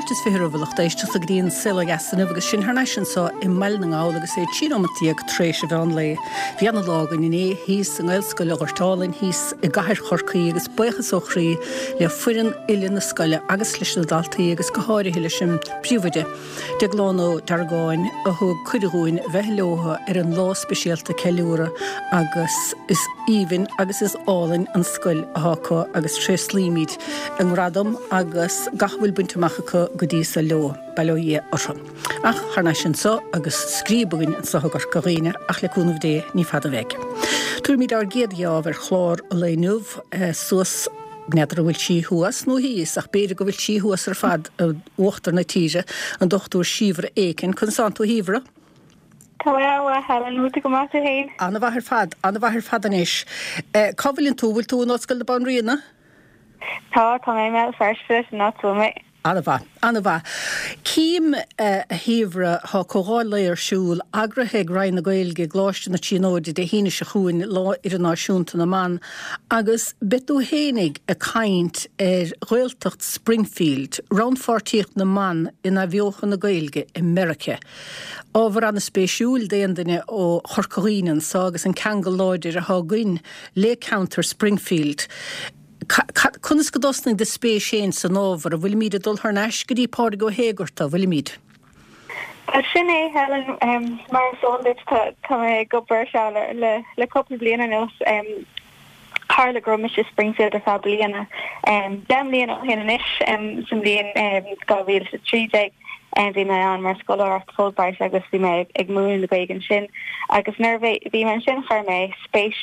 Fáilte is 20 roimh a lucht éisteachta go dtí an Saol Ó Dheas inniu agus sinn thar n-ais anseo i mBaile na nGall agus é 13 nóimeat tar éis an mheán lae. Bhí ana lá againn inné thíos i nGaelscoil an Ghoirt Álainn thíos i gcathair Chorcaí agus buíochas ó chroí le foireann uile na scoile agus leis na daltaí agus go háirithe leis an bpríomhoide Deaglán Ó Deargáin a thug cuireadh dhúinn bheith leotha ar an lá speisialta ceiliúradh agus is aoibhinn agus is álainn an scoil athá acu agus tréaslaímid a ngradam agus gach a bhfuil bainte amach acu go dtí so leo, bail ó Dhia orthu. Ach thar n-ais anso agus scríob againn anso i gCorca Dhuibhne ach le cúnamh Dé ní fada a bheidh. Tabharfaimid ár gcéad gheábh ar chlár an lae inniu suas N'fheadar an bhfuil sí thuas nó thíos, ach b'fhéidir go bhfuil sí thuas ar fad i uachtar na tíre, an Dr Síobhra Aiken. Conas tánn tú, a Shíobhra? Tá mé an-mhaith, Helen. Bhfuil tú go maith tú féin? An-mhaith ar fad, an-mhaith ar fad anois. Cá bhfuileann tú? Bhfuil tú in Ollscoil na Banríona? Tá, tá mé i mBéal Feirste, sin áit a bhfuil mé. An-mhaith. An-mhaith. Cím, a Shíobhra, tá comhdháil lae ar siúl, eagraithe ag Roinn na Gaeilge i gColáiste na Tríonóide Dé hAoine seo chugainn, Lá Idirnáisiúnta na mBan, agus beidh tú fhéinig ag caint ar Ghaeltacht Springfield, rannpháirtíocht na mban in athbheochan na Gaeilge i Meiriceá. Ábhar an-spéisiúil d'aon duine ó Chorca Dhuibhne anso agus an ceangal láidir atá againn le ceantar Springfield. Conas go dtosnaigh do spéis féin san ábhar? An bhfuilimíd ag dul thar n-ais go dtí Pádraig Ó hÉigeartaigh, an bhfuilimíd? Bhuel, sin é, Helen. Mar is eol duit, tá mé ag obair ar seo le cúpla bliain anuas. Tharla go raibh mise i Springfield ar feadh bliana, 10 mbliana ó shin anois, sa mbliain 2013. Bhí mé ann mar scoláireacht Fulbright agus bhí mé ag múineadh na Gaeilge ansin. Agus nuair a bhí mé ansin chuir mé spéis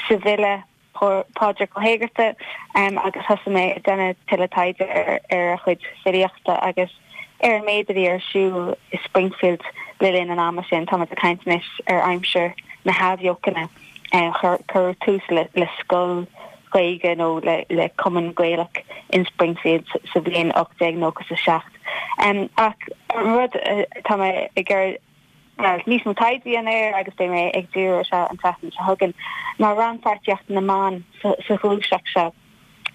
sa bhfile Pádraig Ó hÉigeartaigh agus thosaigh mé ag déanamh tuilleadh taighde ar a chuid filíochta agus ar an méid a bhí ar siúl i Springfield le linn an ama sin. Táimid ag caint anois ar aimsir na hAthbheochana. Cuireadh tús le scoil Ghaeilge nó le cumann Gaelach in Springfield sa bhliain 1897. Ach an rud atá mé ag iarraidh níos mó taighde a dhéanamh air agus beidh mé ag díriú air seo an tseachtain seo chugainn, ná rannpháirtíocht na mban sa ghluaiseacht seo.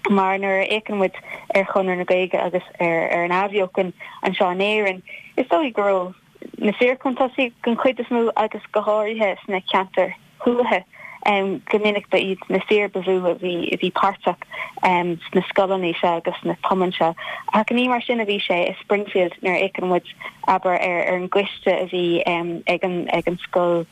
Mar nuair a fhéachann muid ar Chonradh na Gaeilge agus ar an Athbheochan anseo in Éirinn, is dóigh go raibh na fir chun tosaigh den chuid is mó agus go háirithe sna ceantair thuaithe. Go minic ba iad na fir ba mhó a bhí a bhí páirteach sna scoileanna seo agus sna cumainn seo. Ach ní mar sin a bhí sé i Springfield nuair a fhéachann muid, abair, ar ar an gcoiste a bhí ag an ag an scoil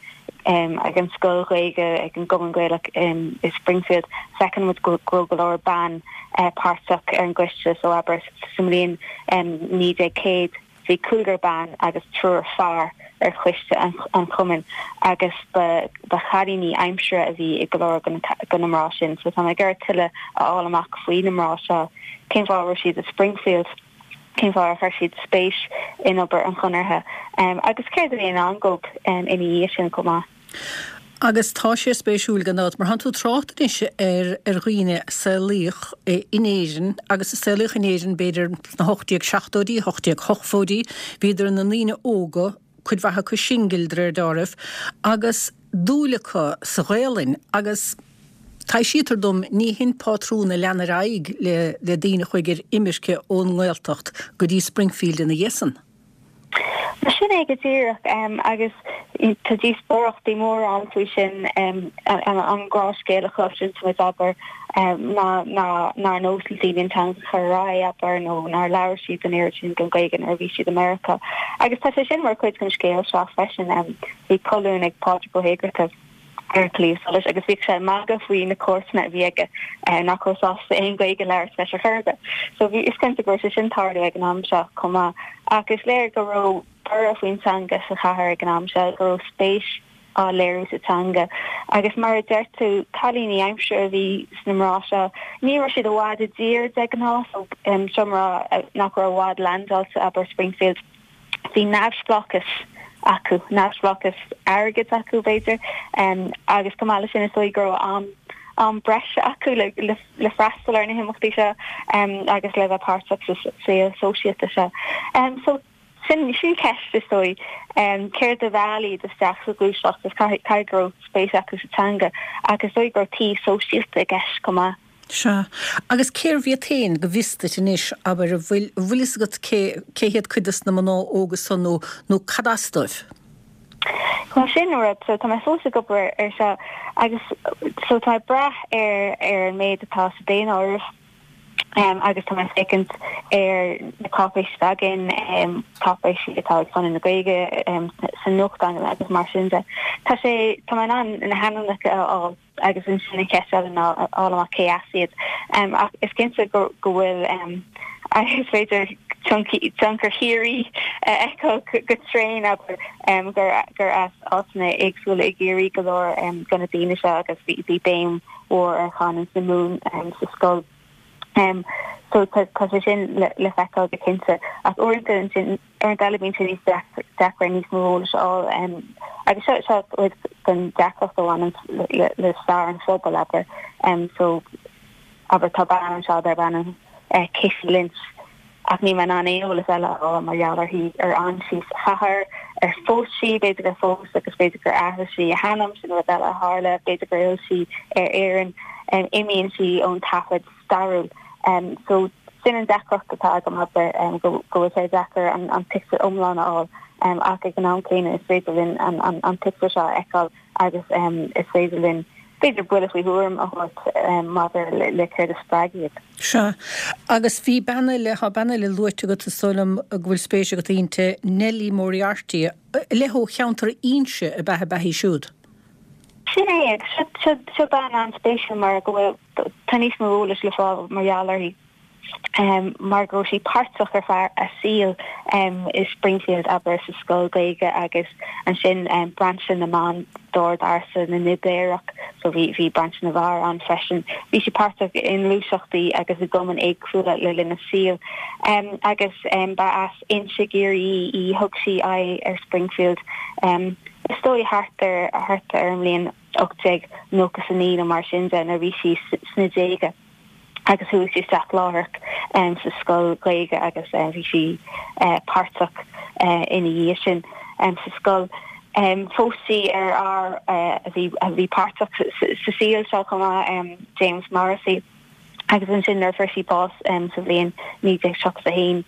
ag an scoil Ghaeilge, ag an gCumann Gaelach i Springfield, feiceann muid go raibh go leor ban páirteach ar an gcoiste. So abair sa mbliain 1900, Bhí cúigear ban agus triúr fear ar choiste an chumainn agus ba chailíní aimsire a bhí i go leor de na mná sin. So tá mé ag iarraidh tuilleadh a fháil amach faoi na mná seo, cén fáth a raibh siad i Springfield, cén fáth ar chuir siad spéis in obair an Chonartha agus céard a bhí i ndán dóibh ina dhiaidh sin chomh maith. Agus tá sé spéisiúil gan dabht, mar tánn tú ag trácht anois ar ar dhaoine a saolaíodh in Éirinn agus a saolaíodh in Éirinn b'fhéidir sna 1870idí, 1880idí, bhíodar ina ndaoine óga, cuid mhaith acu singil de réir deáraimh, agus dúil acu sa Ghaelainn agus taibhsítear dom ní hin pátrún a lean ar aghaidh le le daoine a chuaigh ar imirce ón nGaeltacht go dtí Springfield ina dhiaidh san. Sin é go díreach, agus tá díospóireachtaí móra ann faoi sin, an gnáthscéal a chloiseann muid, abair, ná nár nós le daoine an teanga a chur ar aghaidh, abair, nó nár labhair siad an oiread sin den Ghaeilge nuair a bhí siad i Meiriceá. Agus tá sé sin mar chuid den scéal seo freisin. Bhí colún ag Pádraig Ó hÉigeartaigh. ar Claidheamh Soluis agus bhíodh sé ag magadh faoi na comharsana a bhí aige nach raibh sásta aon Ghaeilge a labhairt leis ar chor ar bith. So bhí, is cinnte go raibh sé sin ag tarlú ag an am seo chomh maith. Ach is léir go raibh borradh faoin teanga sa chathair ag an am seo, go raibh spéis á léiriú sa teanga. Agus mar a deir tú, cailíní aimsire a bhí sna mná seo. Ní raibh siad i bhfad i dtír de ghnáth, so seo mná nach raibh i bhfad leaindeáilte, abair Springfield. Bhí neamhspleáchas acu, neamhspleáchas airgid acu, b'fhéidir, agus chomh maith leis sin is dóigh go raibh am am breise acu le le freastal ar na himeachtaí seo agus le bheith páirteach sa saol sóisialta seo. So sin sin ceist is dóigh, céard a mheall iad isteach sa ghluaiseacht is caithfidh go raibh spéis acu sa teanga ach is dóigh go raibh taobh sóisialta i gceist chomh maith. Sea. Agus cérbh iad féin, go bhfios duit anois, abair, an bhfuil, an bhfuil fhios agat cé, cé hiad cuid dos na mná óga san nó, nó cad as dóibh? Bhuel sin an rud, so tá mé fós ag obair ar seo agus so tá mé ag brath ar, ar an méid atá sa daonáireamh agus tá mé ag féachaint ar na cáipéisí atá againn, cáipéisí atá ag Conradh na Gaeilge sa nuachtán agus mar sin de. Tá sé, tá mé in ann na hainmneacha a fháil. Agus ansin an cheist eile ná a fháil amach cé as iad. Ach is cinnte go bhfuil, is féidir tionchar Chiarraí a fheiceáil go tréan, abair, gur as áiteanna éagsúla i gCiarraí go leor de na daoine seo agus bhí béim mhór ar chanúint na Mumhan sa scoil. So tá sé sin le feiceáil go cinnte. Ach uaireanta ansin, Uaireanta eile bíonn sé níos deacra níos mó eolais a fháil agus seo seo cuid den deacracht a bhaineann le stair an phobail, abair. So, abair, tá bean anseo darb ainm Kitty Lynch ach níl mé in ann aon eolas eile a fháil mar gheall uirthi, ar fhan sí sa chathair, ar phós sí, b'fhéidir gur phós agus b'fhéidir gur athraigh sí a hainm, sin rud eile a tharla, b'fhéidir gur fhill sí ar Éirinn, imíonn sí ón taifead. stairiúil. So, sin an deacracht atá agam, abair, go bhfuil sé deacair an pictiúr iomlán a fháil ach ag an am céanna is féidir linn an pictiúr seo a fheiceáil agus is féidir linn, b'fhéidir, buille faoi thuairim a thabhairt maidir le céard a spreag iad. Sea. Agus bhí bean eile, tá bean eile luaite agat, is dóigh liom go bhfuil spéis agat inti, Nellie Moriarty, le ó cheantar Inse ab ea ab ea í siúd? Sin é, agus seo bean an-spéisiúil mar go bhfuil, tá níos mó eolais le fáil mar gheall uirthi mar go raibh sí páirteach ar feadh a saoil i Springfield, abair, sa scoil Ghaeilge agus ansin brainse na mban d'Ord Ársa na nIbéarach, so bhí bhí brainse na bhfear ann freisin. Bhí sí páirteach i ngluaiseachtaí agus i gcumainn éagsúla le linn a saoil agus ba as Inse i gCiarraí í, thug sí aghaidh ar Springfield is dóigh thart ar thart ar an mbliain 1899 nó mar sin de nuair a bhí sí sna déaga agus chuaigh sí isteach láithreach sa scoil Ghaeilge agus bhí sí páirteach ina dhiaidh sin sa scoil. Phós sí ar fhear a bhí a bhí páirteach sa saol seo chomh maith, James Morrissey. Agus ansin nuair a fuair sí bás sa bhliain 1931,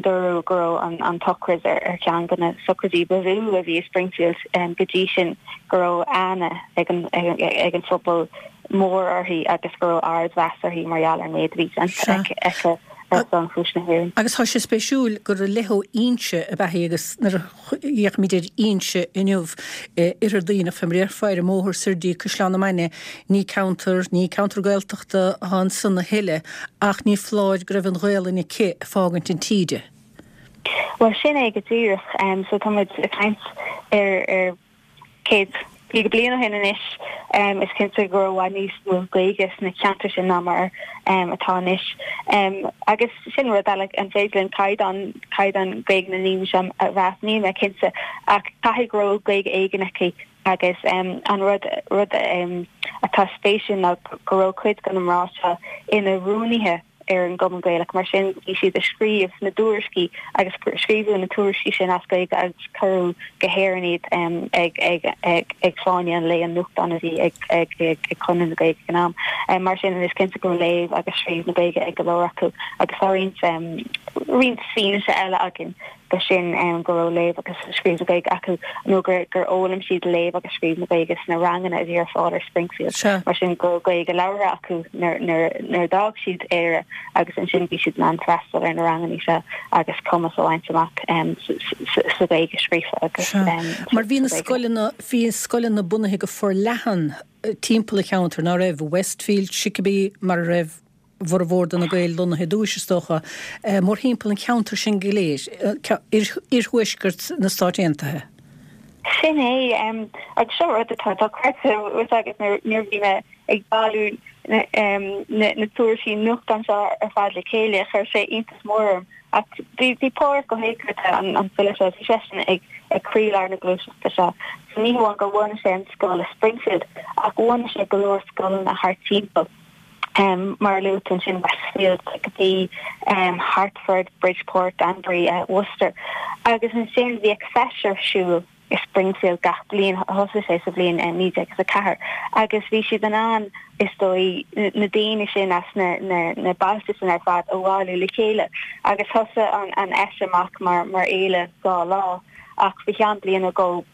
dúradh go raibh an tsochraid ar cheann de na sochraidí ba mhó a bhí i Springfield go dtí sin, go raibh aithne ag an phobal mór uirthi agus go raibh ardmheas uirthi mar gheall ar an méid a bhí déanta aici ar son chúis na hÉireann. Agus tá sé spéisiúil gur le ó Inse ab ea í agus nuair a fhéachaimid ar Inse inniu, Oirthear Duibhneach, fé mar a déarfá, ar an mbóthar soir dtí Caisleán na Mainge, ní ceantar, ní ceantar Gaeltachta atá ansan a thuilleadh, ach ní foláir go raibh an Ghaelainn aici ag fágaint an tí di. Bhuel, sin é go díreach. So tá muid ag caint ar, ar 150 bliain ó shin anois, is cinnte go raibh i bhfad níos mó Gaeilge sna ceantair sin ná mar atá anois. Agus sin rud eile, an féidir linn caighdeán, caighdeán Gaeilge na ndaoine seo a mheas? Níl mé cinnte, ach caithfidh go raibh Gaeilge éigin aici agus an rud, rud atá spéisiúil ná go raibh cuid de na mná seo ina rúnaithe ar an gCumann Gaelach. Mar sin, bhí siad ag scríobh na dtuairiscí agus scríobhadh na tuairiscí sin as Gaeilge agus cuireadh go hÉirinn iad ag ag Fáinne an Lae, an nuachtán a bhí ag ag Conradh na Gaeilge ag an am. Mar sin, is cinnte go raibh léamh agus scríobh na Gaeilge ag go leor acu agus tá roinnt roinnt fianaise eile againn de sin go raibh léamh agus scríobh na Gaeilge acu nó gur gur fhoghlaim siad léamh agus scríobh na Gaeilge sna ranganna a bhí ar fáil ar Springfield. Mar sin go raibh Gaeilge labhartha acu nuair nuair a d'fhág siad Éire agus ansin bhí siad in ann freastal ar na ranganna seo agus cumas a bhaint amach sa Ghaeilge scríofa agus Mar bhí na scoileanna bhí scoileanna bunaithe go forleathan timpeall an cheantair, ná raibh? Westfield, Chicopee, mar a raibh bhformhór de na Gaeil lonnaithe i dtúis, is dócha, mórthimpeall an cheantair sin go léir, iarthuaisceart na Stáit Aontaithe. Sin é, agus seo rud atá dochreidte, bhfuil a fhios agat, nuair a bhí mé ag bailiú na tuairiscí nuachtáin seo ar fad le chéile, chuir sé iontas mór orm. Ach bhí Pádraig Ó hÉigeartaigh, an file seo, bhí seisean ag croílár na gluaiseachta seo. So ní hamháin gur bhunaigh sé an scoil i Springfield, ach bhunaigh sé go leor scoileanna thart timpeall. Mar a luaigh tú ansin, Westfield, Chicopee, Hartford, Bridgeport, Danbury, Worcester. Agus ansin bhíodh feis ar siúl. i Springfield gach bliain, thosaigh sé sa bhliain 1904, agus bhí siad in ann, is dóigh, na daoine sin as na bailte sin ar fad a bhailiú le chéile. Agus thosaigh an fheis amach mar fhéile 2 lá, ach faoi cheann bliain nó dhó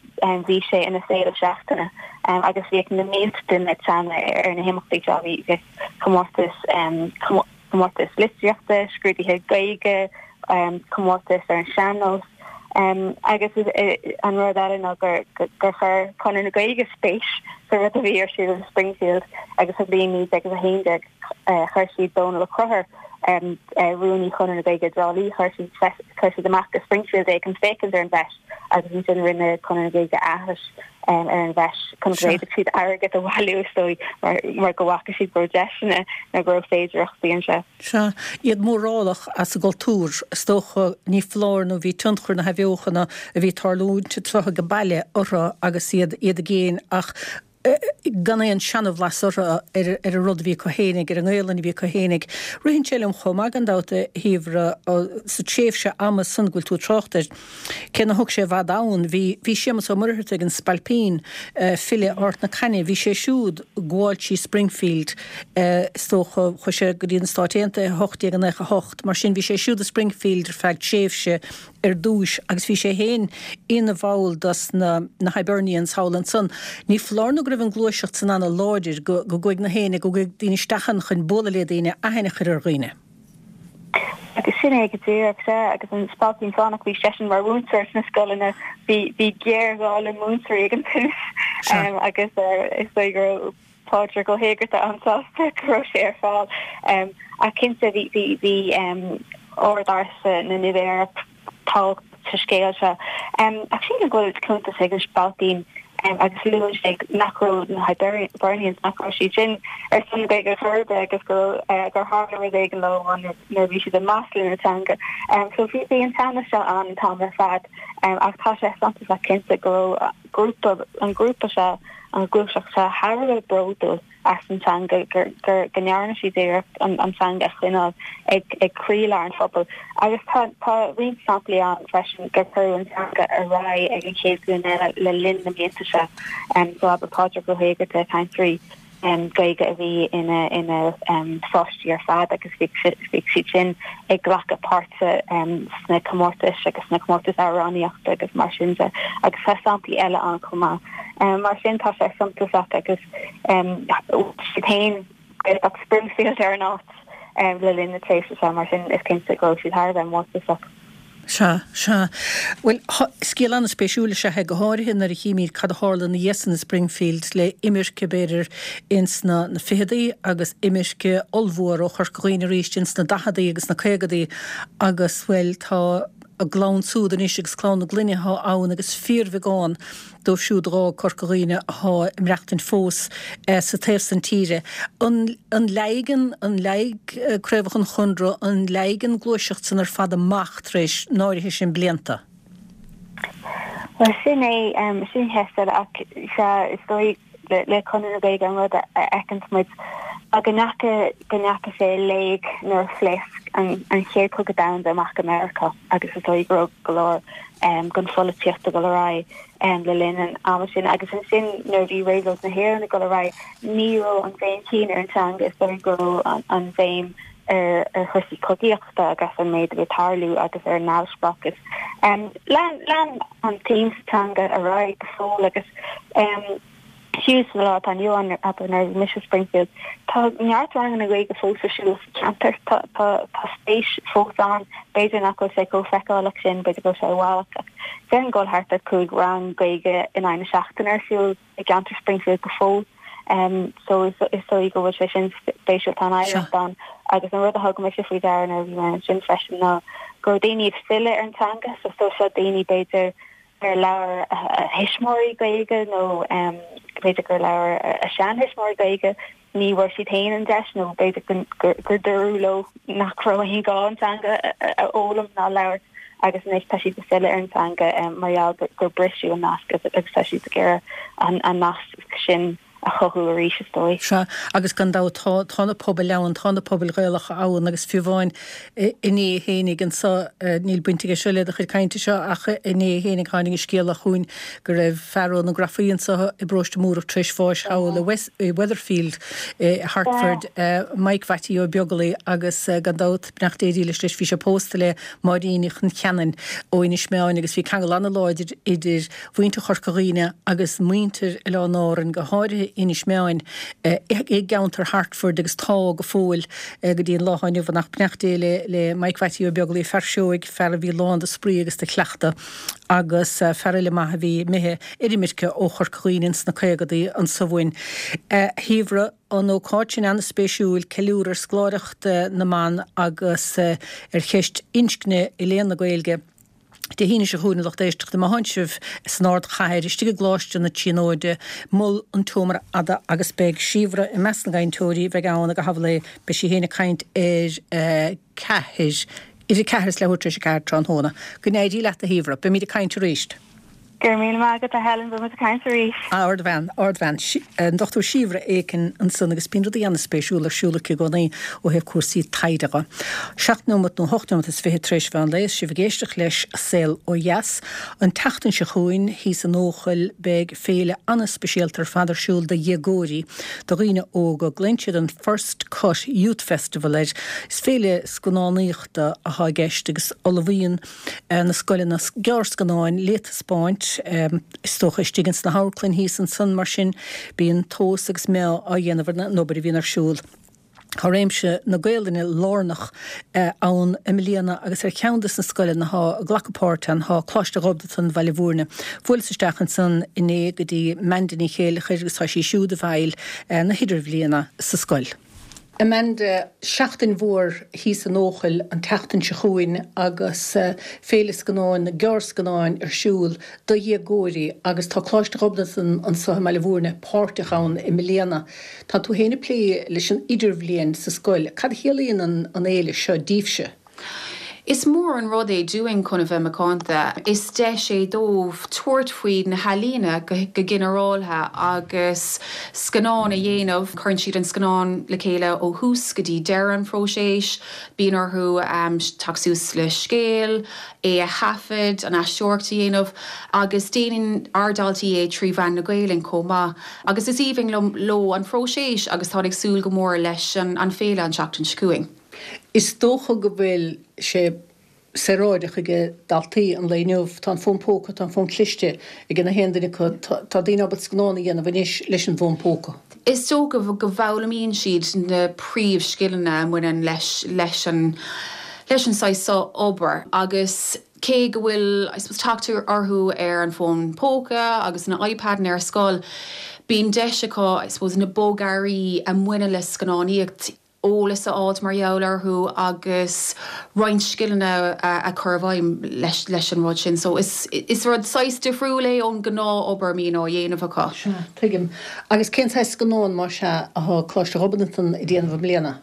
bhí sé ina féile seachtaine agus bhíodh na mílte duine ag teannadh ar na himeachtaí seo. Bhí comórtas comórtas litríochta, scrúduithe Gaeilge, comórtas ar an sean-nós agus an rud eile ná gur chuir Conradh na Gaeilge spéis sa rud a bhí ar siúl i Springfield agus sa bhliain 1911 chuir siad Dónal Ó Conchúir, Rúnaí Chonradh na Gaeilge i dTrá Lí, chuir siad amach go Springfield é chun féachaint ar an bhfeis agus ansin rinne Conradh na Gaeilge aithris ar an bhfeis chun go bhféadfadh siad airgead a bhailiú, is dóigh, mar go bhfaca siad go raibh deiseanna nó go raibh féidearthachtaí anseo. Sea, iad mórálach as a gcultúr, is dócha, ní foláir nó bhí tionchar na hathbheochana a bhí ag tarlúint anseo age baile orthu agus iad iad i gcéin ach gan aon seanabhlas orthu ar an rud a bhí acu fhéinig, ar an nGaelainn a bhí acu fhéinig. Ritheann sé liom chomh maith, gan dabht, a Shíobhra, sa tréimhse ama san go bhfuil tú ag trácht air, cé nár thug sé i bhfad ann, bhí, bhí Séamus Ó Muircheartaigh, an Spailpín, file Ard na Caithne, bhí sé siúd ag gabháil trí Springfield, is dócha, chuaigh sé go dtí na Stáit Aontaithe i 1898, mar sin bhí sé siúd i Springfield ar feadh tréimhse ar dtúis agus bhí sé féin ina bhall dos na na Hibernians thall ansan. Ní foláir nó go raibh an gluaiseacht san ana láidir go go gcuaigh na héinne, go gcuaigh daoine isteach ann chun bualadh le daoine, aithne a chur ar dhaoine. Agus sin é go díreach, sea, agus an Spailpín Fánach, bhí seisean mar mhúinteoir sna scoileanna, bhí bhí géarghá le múinteoirí ag an tús agus is dóigh go raibh Pádraig Ó hÉigeartaigh an-sásta go raibh sé ar fáil. Ach cinnte bhí bhí bhí Ord Ársa na nIbeirach tábhachtach sa scéal seo. Ach sílim go bhfuil cuntas ag an Spailpín agus luann sé nach raibh na Hibernians, nach raibh siad sin ar son na Gaeilge chor ar bith agus go raibh gur tharla rud éigin leo nuair a bhí siad ag maslú na teanga. So bhí bhí an teannas seo ann an t-am ar fad ach tá sé suntasach cinnte go raibh grúpa, an grúpa seo, an ghluaiseacht seo thar a bheith bródúil as an teanga, gur, gur, go ndearna siad iarracht an, an teanga a choinneáil ag, ag croílár an phobail. Agus tá, tá roinnt samplaí ann freisin gur cuireadh an teanga ar aghaidh ag an chéad ghlúin eile le linn na mblianta seo. So abair Pádraig Ó hÉigeartaigh, cainteoirí Gaeilge a bhí ina ina pháistí ar fad agus bhí siad sin ag glacadh páirte sna comórtais agus sna comórtais amhránaíochta agus mar sin de agus tá samplaí eile ann chomh maith. Mar sin tá sé suntasach agus siad féin Gaeltacht Springfield ar an áit le linn na tréimhse seo mar sin is cinnte go raibh siad thar a bheith mórtasach. Sea, sea. Bhuel, scéal an-spéisiúil is ea é, go háirithe nuair a chímid cad a tharla ina dhiaidh san i Springfield le imirce, b'fhéidir, ins na na ficheadaí agus imirce ollmhór ó Chorca Dhuibhne arís ins na daicheadaí agus na caogadaí agus, bhuel, tá a gclann súd anois agus clann na gclainne atá ann agus fíorbheagán dóibh siúd a dh'fhág Corca Dhuibhne athá ag maireachtaint fós sa taobh san tíre. An an leáigh an leáigh craobhacha an Chonradh, an leáigh an gluaiseacht san ar fad amach tar éis an áirithe sin blianta? Bhuel, sin é, sin ceist eile ach sea, is dóigh le Conradh na Gaeilge an rud a fheiceanns muid ná go ndeacha, go ndeacha sé i léig nuair a phléasc an an Chéad Chogadh Domhanda amach i Meiriceá agus is dóigh go raibh go leor den pholaitíocht ag dul ar aghaidh le linn an ama sin agus ansin nuair a bhí Réabhlóid na hÉireann ag dul ar aghaidh ní raibh an bhéim chéanna ar an teanga, is dóigh go raibh an bhéim ar ar chúrsaí cogaíochta agus an méid a bhí ag tarlú agus ar an neamhspleáchas. Lean lean an tsuim sa teanga ar aghaidh go fóill agus fiú sa lá atá inniu ann, abair nuair a bhí mise i Springfield, tá neart ranganna Gaeilge fós ar siúl sa cheantar. Tá tá tá spéis fós ann. B'fhéidir nach bhfuil sé chomh feiceálach sin, b'fhéidir go bhfuil sé i bhfalach ach déarfainn go bhfuil thart ar 5 rang Gaeilge in aghaidh na seachtaine ar siúl i gceantar Springfield go fóill. So is is dóigh go bhfuil sé sin spéisiúil, tá an oidhreacht ann agus an rud a thug mise faoi deara nuair a bhí mé ansin freisin ná go raibh daoine ag filleadh ar an teanga, so so seo daoine b'fhéidir ar labhair a thuismitheoirí Gaeilge nó b'fhéidir gur labhair a seantuismitheoirí Gaeilge, ní bhfuair siad féin an deis nó b'fhéidir gur dúradh leo nach raibh aon ghá an teanga a fhoghlaim ná a labhairt agus anois tá siad ag filleadh ar an teanga mar gheall gur briseadh an nasc agus tá siad ag iarraidh an nasc sin. a chothú arís, is dóigh. Sea, agus gan dabht tá, tá na pobail ann, tá na pobail Ghaelacha ann agus fiú amháin inné fhéinig anso, níl baint aige seo le do chuid cainte seo ach inné fhéinig tháinig an scéala chugainn go raibh fear ó na Grafaí anso i bparóiste Múrach tar éis bháis thall i Weatherfield i Hertford, Mike Mhattie Ó Beaglaoi agus gan dabht, beannacht Dé dhílis leis, bhí sé pósta le Máirín Uí Choncheanainn ó Inis Meáin agus bhí ceangal an-láidir idir mhuintir Chorca Dhuibhne agus muintir Oileáin Árann, go háirithe Inis Meáin, i gceantar Hertford agus tá go fóill go dtí an lá atá inniu ann. Ach beannacht Dé le Mike Mhattie Ó Beaglaoi, fear seoigh, fear a bhí lán de spraoi agus de chleachtadh agus fear eile maith a bhí imithe ar imirce ó Chorca Dhuibhne ins na caogadaí anso uainn. A Shíobhra, an ócáid sin an-spéisiúil, ceiliúradh ar scoláireacht na mban agus ar cheist inscne i léann na Gaeilge. Dé hAoine seo chugainn, a lucht éisteachta, má thánn sibh san ardchathair, istigh i gColáiste na Tríonóide, Mol an tSeomra Fhada agus beidh Síobhra i measc na gcainteoirí a bheidh ann ag a hamhlaidh. Beidh sí féin ag caint ar a ceathair, idir ceathair is leathuair tar éis a ceathair tráthnóna. Go n-éirí leat, a Shíobhra. Beimid ag caint arís. Go raibh míle maith agat, a Helen. Beidh muid ag caint arís. Ardbhean, ardbhean. An Dr Síobhra Aiken ansan agus bíonn rudaí an-spéisiúla ar siúl aici i gcónaí ó thaobh cúrsaí taighde dhe. Seacht nóimeat nó hocht nóimeat is fichead tar éis mheán lae is sibh ag éisteacht leis Saol Ó Dheas. An tseachtain seo chugainn thíos in Eochaill beidh féile an-speisialta ar fad ar siúl do dhéagóirí, do dhaoine óga. Glaonn siad an First Cut Youth Festival air. Is féile scannánaíochta atá i gceist agus ullmhaíonn na scoileanna gearrscannáin le taispeáint, is dócha, istigh ins na hamharclann thíos ansan, mar sin bíonn tomhas agus meá á dhéanamh ar an obair a bhíonn ar siúl. Tá réimse na Gaolainne lárnach ann i mbliana agus ar cheann des na scoileanna atá ag glacadh páirt ann tá Coláiste Ghobnatan, Bhaile Bhúirne. Bhuaileas isteach ansan inné go dtí Amanda Ní Chéileachair agus tá sí siúd i bhfeighil na hidirbhliana sa scoil. Amanda, Seachtain mhór thíos in Eochaill an tseachtain seo chugainn agus Féile Scannáin na Gearrscannáin ar siúl do dhéagóirí agus tá Coláiste Ghobnatan anseo i mBaile Bhúirne páirteach ann i mbliana. Tá tú féin ag plé leis an idirbhliain sa scoil. Cad a chiallaíonn an fhéile seo díbhse? Is mór an rud é dúinn chun a bheith macánta. Is deis é dóibh tabhairt faoi na healaíona go ginearáltha agus scannán a dhéanamh. Cuireann siad an scannán le chéile ó thús go dtí deireadh an phróiseas. Bíonn orthu teacht suas le scéal, é a thaifead, an aisteoireacht a dhéanamh agus déanann ár ndaltaí é trí mheán na Gaelainne chomh maith. Agus is aoibhinn leo an phróiseas agus táid ag súil go mór leis an féile an tseachtain seo chugainn. Is dócha go bhfuil sé saoráideach ag daltaí an lae inniu. Tá an fón póca, tá an fón cliste ag na haon duine acu. Tá daoine ábalta scannán a dhéanamh anois leis an bhfón póca. Is dócha go bhfoghlaimíonn siad na príomhscileanna a mbaineann leis leis an leis an saghas seo obair agus cé go bhfuil I suppose teacht orthu ar an bhfón póca agus na iPadanna ar scoil, bíonn deis acu I suppose na bogearraí a mbaineann le scannánaíocht eolas a fháilt mar gheall orthu agus roinnt scileanna a chur i bhfeidhm leis an rud sin. So is is rud saghas difriúil é ón gnáth-obair a mbíonn á dhéanamh acu. Sea, tuigim. Agus cén saghas scannán, más ea, atá Coláiste Ghobnatan ag déanamh i mbliana?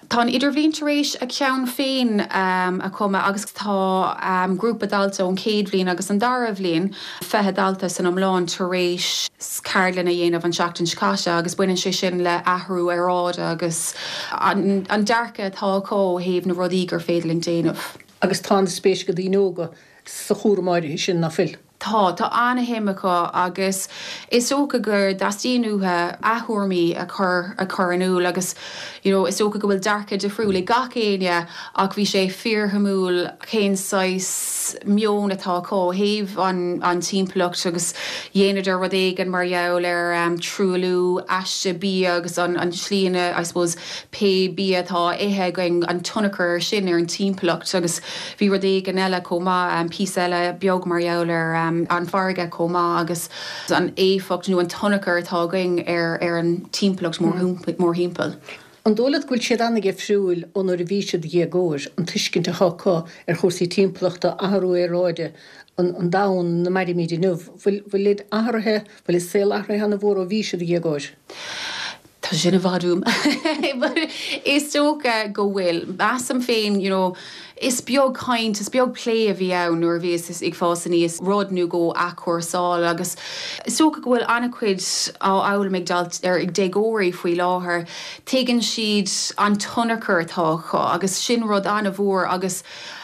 Tá an Idirbhliain tar éis a ceann féin a chumadh agus tá grúpa dalta ón chéad bhliain agus an dara bhliain, 20 dalta san iomlán, tar éis ceardlann a dhéanamh an tseachtain seo caite agus baineann sé sin le athrú aeráide agus an dearcadh atá acu ó thaobh na rudaí gur féidir linn déanamh. Agus tá an-spéis ag daoine óga sa chúram áirithe sin, ná fuil? Tá, tá an-shuim acu agus is dócha go dteastaíonn uathu a dtuairimí a chur a chur in iúl agus you know is dócha go bhfuil dearcadh difriúil ag gach éinne ach bhí sé fíorshuimiúil cén saghas meon atá acu ó thaobh an an timpeallacht agus dhéanadar rud éigin mar gheall ar truailliú aiste bia agus an an tslí ina I suppose pé bia atá á ithe againn an tionchar ar sin ar an timpeallacht agus Bhí rud éigin eile chomh maith, píosa eile beag mar gheall ar an bhfarraige chomh maith agus an éifeacht nó an tionchar atá againn ar an timpeallacht mórthimpeall. An dóigh leat go bhfuil siad an-dhifriúil ó nuair a bhí siad déagóir, an tuiscint atá acu ar chúrsaí timpeallachta, athrú aeráide, an domhan ina mairimid inniu? Bhfuil, bhfuilid athraithe, bhfuil a saol athraithe an-mhór ó bhí siad déagóir? Tá. Tá sin i bhfad uaim. But is dócha go bhfuil. Measaim féin, you know, is beag caint, is beag plé a bhí ann nuair a bhíos ag fás aníos, rud nó dhó a athchúrsáil agus is dócha go bhfuil an-chuid á fhoghlaim ag dalt, ar, ag déagóirí faoi láthair. Tuigeann siad an tionchar atá acu agus sin rud an-mhór agus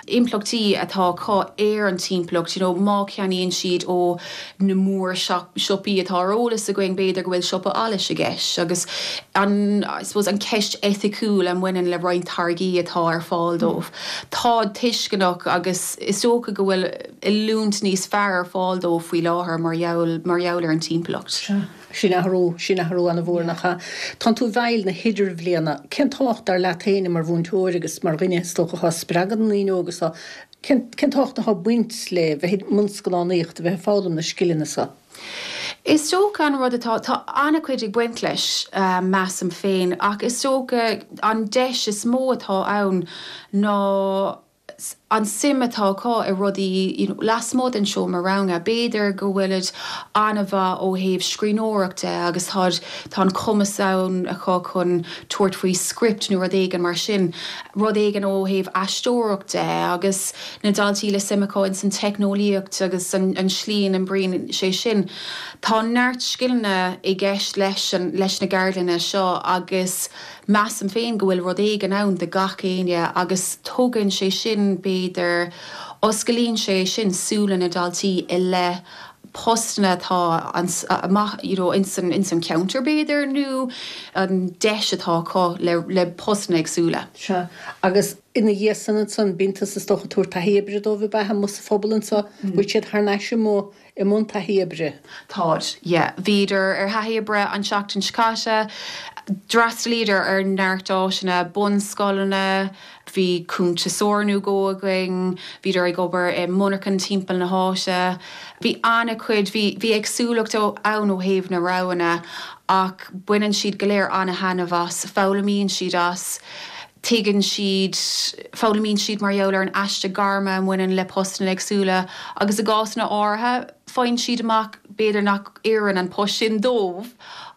impleachtaí atá acu ar an timpeallacht, you know, má cheannaíonn siad ó na mór siopaí atá ar eolas againn, b'fhéidir go bhfuil siopa allais i gceist agus an, I suppose, an cheist eiticiúil a mbaineann le roinnt táirgí atá ar fáil dóibh. Táid tuisceanach agus is dócha go bhfuil oiliúint níos fearr ar fáil dóibh faoi láthair mar gheall, mar gheall ar an timpeallacht. Sea. Sin athrú, sin athrú an-mhór, nach ea? Tánn tú i bhfeighil na hidirbhliana. Cén tábhacht, dar leat féin, mar mhúinteoir agus mar dhuine, is dócha, atá ag spreagadh na ndaoine óga so, cén, cén tábhacht atá ag baint le bheith i mbun scannánaíochta, bheith ag foghlaim na scileanna so? Is dócha an rud atá, tá an-chuid ag baint leis, measaim féin, ach is dócha an deis is mó atá ann ná, an suim atá acu i rudaí you know lasmuigh den seomra ranga. B'fhéidir go bhfuilid an-mhaith ó thaobh scríbhneoireacht de agus táid, tá an cumas ann acu chun tabhairt faoi script nó rud éigin mar sin, rud éigin ó thaobh aisteoireacht de agus na daltaí le suim acu ins an teicneolaíocht agus an an slí a n-oibríonn sé sin. Tá neart scileanna i gceist leis an, leis na gceardlanna seo agus Measaim féin go bhfuil rud éigin ann do gach éinne agus tugann sé sin, b'fhéidir, osclaíonn sé sin súile na ndaltaí i leith postanna atá amach you know ins an ins an cheantar b'fhéidir nó an deis atá acu le le postanna éagsúla. Sea. Agus ina dhiaidh san ansan bíonn tusa is dócha ag tabhairt taithí oibre dóibh ab ea amuigh sa phobal anso? Bhfuil siad thar n-ais amuigh i mbun taithí oibre. Táid, yeah. Bhíodar ar thaithí oibre an tseachtain seo caite. D'fhreastalaíodar ar neart áiteanna, bunscoileanna, bhí cuntasóir nó dhó againn, bhíodar ag obair i monarchan timpeall na háite. Bhí an-chuid, bhí, bhí éagsúlacht ann ó thaobh na roghanna ach baineann siad go léir an-thaitneamh as, foghlaimíonn siad as. Tuigeann siad, foghlaimíonn siad mar gheall ar an aiste gairme a mbaineann le postanna éagsúla agus i gcásanna áirithe faigheann siad amach b'fhéidir nach oireann an post sin dóibh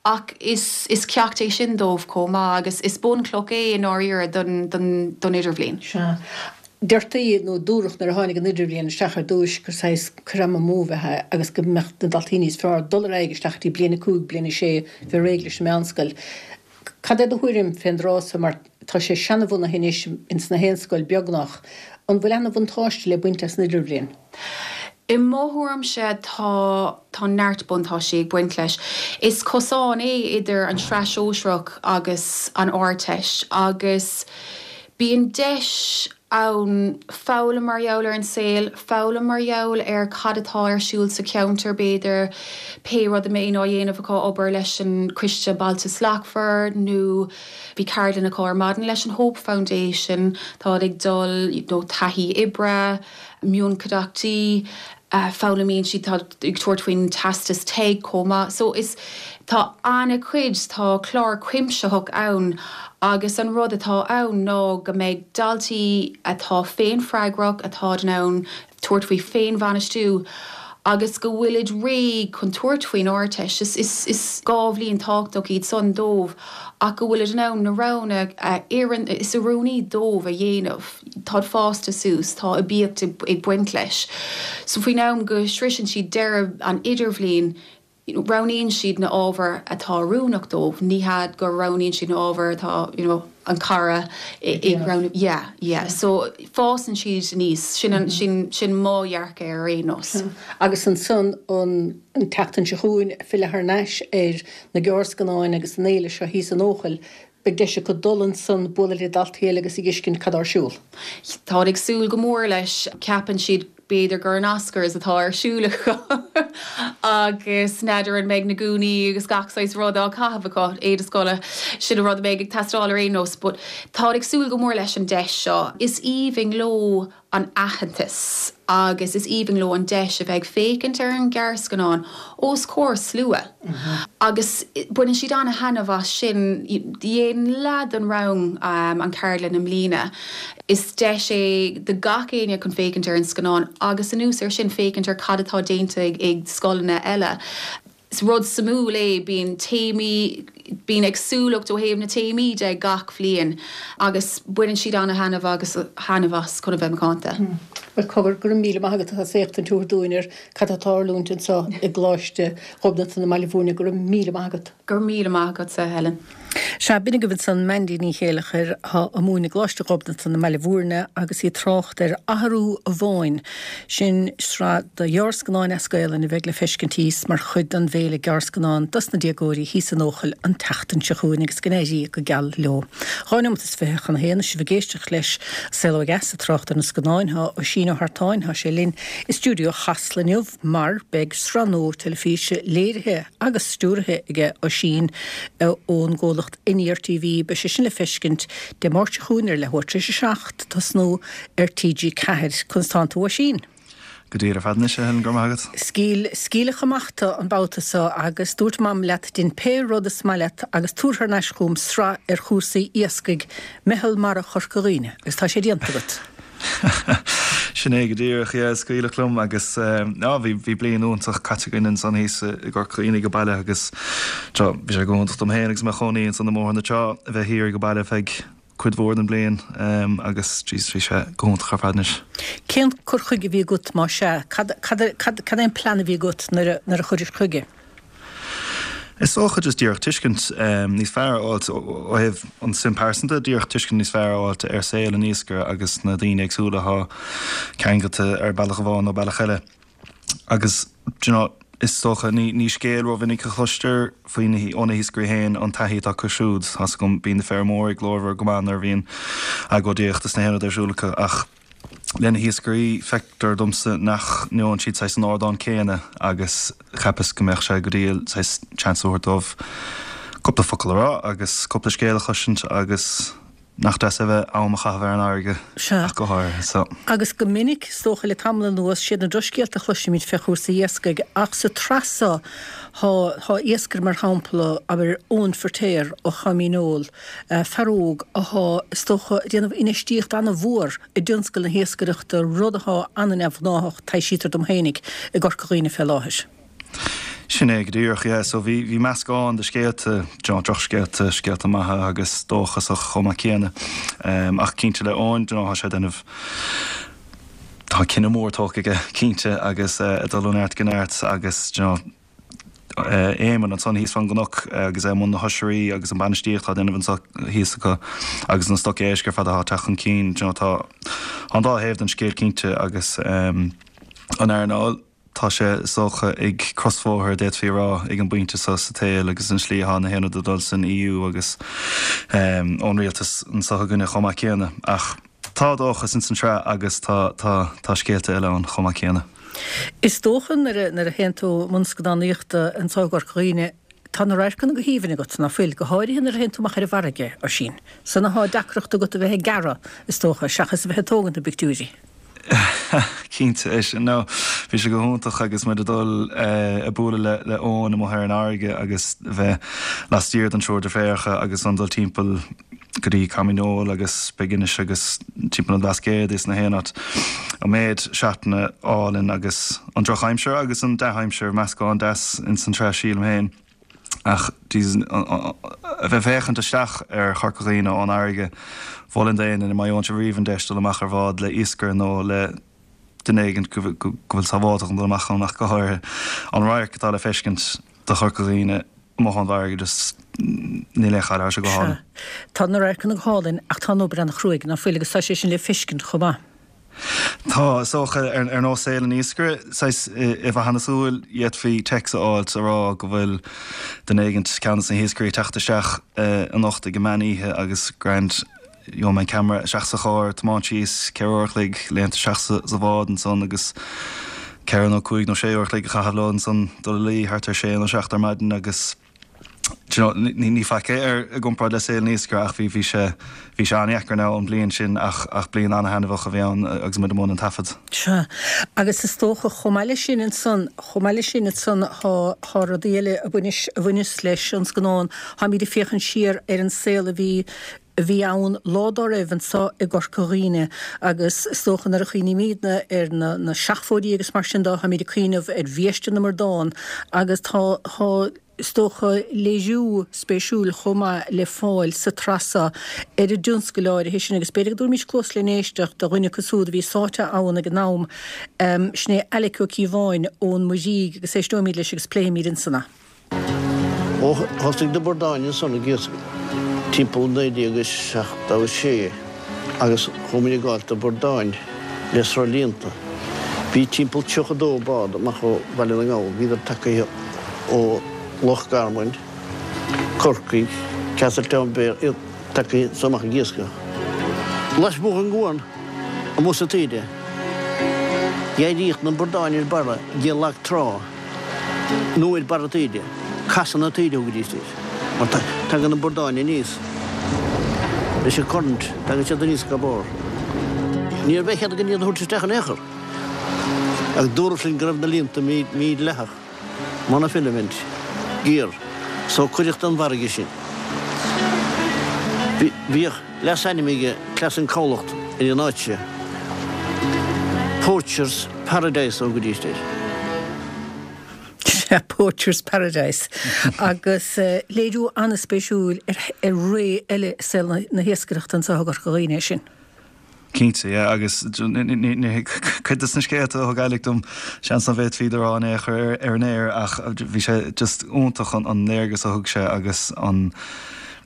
ach is is ceacht é sin dóibh chomh maith agus is bunchloch é i ndáiríre don don don idirbhliain. Sea. Deirtí nó dúradh nuair a tháinig an idirbhliain isteach ar dtúis gur saghas cur ama amú a bheadh ann agus go mbeadh na daltaí níos fearr dul ar aghaidh isteach go dtí bliain 5, bliain 6, bheith réidh leis an meánscoil. Cad é do thuairim fén dtráth so mar tá sé seanabhunaithe anois ins na haon scoil beagnach. An bhfuil ana bhuntáiste le baint as an idirbhliain? I mo thuairimse tá tá neart buntáistí ag baint leis. Is cosán é idir an tSraith Shóisearach agus an Ardteist agus bíonn deis ann foghlaim mar gheall ar an saol, foghlaim mar gheall ar cad atá ar siúl sa cheantar, b'fhéidir, pé rud a mbíonn á dhéanamh acu, obair leis an Coiste Bailte Slachtmhar nó bhí ceardlann acu ar maidin leis an Hope Foundation, táid ag dul, you know, taithí oibre, mionchuideachtaí. foghlaimíonn siad, tá ag tabhairt faoin teastas TEG chomh maith. So is, tá an-chuid, tá clár cuimsitheach ann agus an rud atá ann ná go mbeidh daltaí atá féinfhreagrach, atá in ann tabhairt faoi féinbhainistiú agus go bhfuilid réidh chun tabhairt faoin Ardteist. Is, is, is 2 bhliain tábhachtach iad san dóibh ach go bhfuilid in ann na roghanna a oireann, is oiriúnaí dóibh a dhéanamh. Táid fásta suas, tá aibíocht ag baint leis. So faoin am go sroiseann siad deireadh an idirbhliain, roghnaíonn siad na ábhair atá oiriúnach dóibh, ní hea go roghnaíonn siad na ábhair atá, you know, an cara ag roghnú. Yeah, yeah. So fásann siad aníos, sin an, sin, sin mo dhearcadh ar aon nós. Agus ansan an tseachtain seo chugainn, filleadh thar n-ais ar na gearrscannáin agus an fhéile seo thíos in Eochaill, Beidh deis acu dul ansan, bualadh le daltaí eile agus a dh'fheiscint cad tá ar siúl. Táid ag súil go mór leis. Ceapann siad b'fhéidir gur an Oscars atá ar siúl acu agus n'fheadar an mbeidh na gúnaí agus gach saghas rud á caitheamh acu, éide scoile, sin an rud a bheidh ag teastáil ar aon nós. But táid ag súil go mór leis an deis seo. Is aoibhinn leo an aitheantas agus is aoibhinn leo an deis a bheith ag féachaint ar an ghearrscannán os comhair slua agus baineann siad an-thaitneamh as sin. Dhein leath den rang an cheardlann i mbliana. Is deis é do gach éinne chun féachaint ar an scannán agus anuas ar sin féachaint ar cad atá déanta ag scoileanna eile. Is rud suimiúil é, bíonn téamaí, bíonn éagsúlacht ó thaobh na téamaí de gach bhliain agus baineann siad ana-thaitneamh agus thaitneamh as chun a bheith macánta. Bhuel, cogar, go raibh míle maith agat as éachtaint a thabhairt dúinn ar cad atá ag tarlúint anseo i gColáiste Ghobnatan i mBaile Bhúirne. Go raibh míle maith agat. Go raibh míle maith agatsa, Helen. Sea, b'in agaibh ansan Mandy Ní Chéileachair, atá ag múineadh i gColáiste Ghobnatan i mBaile Bhúirne agus í ag trácht ar Athrú an Bháin, sin sraith de ghearrscannáin as Gaelainn a bheidh le feiscint thíos mar chuid den bhFéile Gearrscannán dos na déagóirí thíos in Eochaill an tseachtain seo chugainn agus go n-éirí go geal leo. 2 neomat is 20 chun a haon, is sibh ag éisteacht leis Saol Ó Dheas ag trácht ar na scannáin, tá Oisín Ó hEartáin, tá sé linn i stiúideo Chasla inniu. mar beidh sraith nua teilifíse léirithe agus stiúraithe aige Oisín ón gcomhlacht Aniar TV. Beidh sé sin le feiscint Dé Máirt seo chugainn ar leathuair tar éis a 7 tosnú ar TG4. Conas tánn tú Oisín? Go diail ar fad anois, a Helen, go raibh maith agat. Scaoil, scaoileadh amach tú an babhta seo agus dúirt Mam leat dein pé rud is maith leat agus tabhair thar n-ais chugam sraith ar chúrsaí iascaigh Meitheal Mara Chorca Dhuibhne agus tá sé déanta agat. Sin é go díreach, yeah, scaoileadh liom agus ah bhí bhí bliain iontach caite againn ansan thíos i gCorca Dhuibhne age baile agus seo bhí sé go hiontach dom féin agus mé i mo chónaí ansan i mBóthar na Trá a bheith thiar age baile feadh cuid mhór den bhliain agus jeez bhí sé go hiontach ar fad anois. Cén cur chuige a bhí agat más ea? Cad cad cad cad é an plean a bhí agat nuair a nuair a chuiris chuige? Is dócha just díreach tuiscint níos fearr a fháilt ó thaobh an suim pearsanta, díreach tuiscint níos fearr a fháilt ar saol an iascaire agus na daoine éagsúla atá ceangailte ar bealach amháin nó bealach eile. Agus do you know, is dócha ní ní scéal rómhinic a chloistear faoi na ó na hiascairí féin an taithí atá acu siúd. Tá's agam bíonn na feirmeoirí glórmhar go maith nuair a bhíonn agóidíocht is na haon rud ar siúl acu ach Le na hiascairí, feictear domsa nach ngeobhann siad saghas an ardán céanna agus cheapas go mbeadh sé go diail saghas chance a thabhairt dóibh cúpla focal a rá agus cúpla scéal a chloisint agus nach deas é bheith am a chaitheamh ar an fharraige Sea. ach go háirithe so. Agus go minic, is dócha le tamall anuas, siad na drochscéalta a chloisimid fé chúrsaí iascaigh ach sa tsraith seo thá, thá iascaire mar shampla, abair Eoin Firtéar ó Choimín Eoil, fear óg athá, is dócha, ag déanamh infheistíocht ana-mhór i dtionscal na hiascaireachta, rud athá ana-neamhghnáthach, taibhsítear dom fhéinig, i gCorca Dhuibhne fé láthair. Sin é go díreach, yeah. So bhí, bhí meascán de scéalta, do you know, drochscéalta, scéalta maithe agus dóchasach chomh maith céanna. Ach cinnte le Eoin, do you know, tá sé ag déanamh, tá cinneadh mór tógtha aige, cinnte, agus ag dul ó neart go neart agus, do you know, Éamonn ansan thíos fán gcnoc agus é i mbun na hoisrí agus an bainistíocht atá á déanamh anso thíos acu agus na stoc éisc ar fad atá ag teacht chun cinn. Do you know tá an dá thaobh den scéal cinnte agus an earnáil, tá sé is dócha ag crosbhóthar d'fhéadfaí a rá ag an bpointe seo sa tsaol agus an slí atá na haon rud ag dul san EU agus ón rialtas anso againne chomh maith céanna. Ach tá dóchas ins an tsraith agus tá tá tá scéalta eile ann chomh maith céanna. Is dócha nuair a nuair a théann tú i mbun scannánaíochta anseo i gCorca Dhuibhne, tá na radharcanna go haoibhinn agat, ná fuil? Go háirithe nuair a théann tú amach ar an bhfarraige, Oisín. San athá deacracht agat a bheith ag gearradh, is dócha, seachas a bheith ag tógaint na bpictiúirí. Cinnte, é sin. No, bhí sé go hiontach agus muid ag dul ag bualadh le le Eoin amuigh ar an fharraige agus a bheith laistiar den triúr deirféaracha agus an dul timpeall go dtí Coimín Eoil agus Big-Inis agus timpeall an Bhlascaoid is na haon áit. An méid seatanna álainn agus an drochaimsir agus an dea-aimsir, meascán deas ins an tsraith sílim féin. Ach Jesus, a bheith ag féachaint isteach ar Chorca Dhuibhne ón fharraige, mholfainn d'éinne má gheobhann sibh riamh an deis dul amach ar bhád le iascaire nó le duine éigin go bhfuil sábháilte chun dul amach ann ach go háirithe an radharc atá le feiscint do Chorca Dhuibhne amuigh ón bhfarraige just níl aon chaill, tá sé go hálainn. Sea. Tá na radharcanna go hálainn ach tá an obair an-chruaidh, ná fuil, agus tá sé sin le feiscint chomh maith. Tá, is dócha, ar nós saol an iascaire, saghas i bhfathadh na súl, d'fhéadfaí text a fháilt a rá go bhfuil duine éigint, ceann de na hiascairí ag teacht isteach anocht ag an meán oíche agus grand, Gheobhaidh mé an ceamara isteach sa charr, tiomáint síos, 4 uair a chloig, léimt isteach sa bhád ansan agus ceithre nó cúig nó sé uair a chloig a chaitheamh leo ansan, dul a luí thart ar sé nó seacht ar maidin agus do you know, ní, ní faic é ar, i gcomparáid le saol an iascaire ach bhí, bhí sé, bhí sé an-dheacair now an bhliain sin ach, ach bliain an-thaitneamhach a bhí ann agus muid i mbun an taifead. Sea, agus is dócha chomh maith leis sin ansan, chomh maith leis sin ansan thá, thá rudaí eile a bhaineas, a bhaineas leis an scannán, táimid ag féachaint siar ar an saol a bhí. a bhí ann lá dá raibh anso i gCorca Dhuibhne agus is dócha nuair a chuimhnímídne ar na na seachfóidí agus mar sin dó táimíd ag cuimhneamh ar bhiaiste na mbradán agus tá tá is dócha léiriú spéisiúil chomh maith le fáil sa tsraith seo ar an dtionscal áirithe sin agus b'fhéidir go dtabharfaimís cluas len éisteacht do dhuine acu súd a bhí sáite ann ag an am, sin é Alec Ó Cíobháin ón Muirígh agus éisteoimíd leis agus pléifimíd ansan é. Ó thosaigh na bradáin ansan ag iascach timpeall 1976 agus chuaigh muid ag gabháilt do bhradáin le sruthlíonta. Bhí timpeall 32 bád amach ó Bhaile na nGall, bhíodar tagaithe ó Loch Garman, Corcaigh, Castletownbere, iad tagaithe anso amach ag iascach. Lasmuigh den gcuan, amuigh sa taoide, d'éiríodh na bradáin ar barra de lag trá. nó ar barra taoide, casadh na taoide a thugaidís air, mar tagann na bradáin aníos leis an current, tagann siad aníos go barr. Ní raibh aon chead againn iad a thabhairt isteach in aon chor, ach dúradh linn go raibh na líonta mídhleathach, monofilament, gear, so cuireadh den bhfarraige sinn. Bhíodh leasainm ag Cleas an Cabhlacht ar an áit seo, Poachers Paradise a thugaidís air. Sea, Poachers Paradise. Agus léiriú an-spéisiúil ar ré eile i saol na hiascaireachta anseo i gCorca Dhuibhne é sin. Cinnte, yeah, agus cuid de na scéalta a thug Alec dom, seans nach bhféadfaí iad a rá in aon chor ar an aer ach bhí sé just iontach an léargas a thug sé agus an,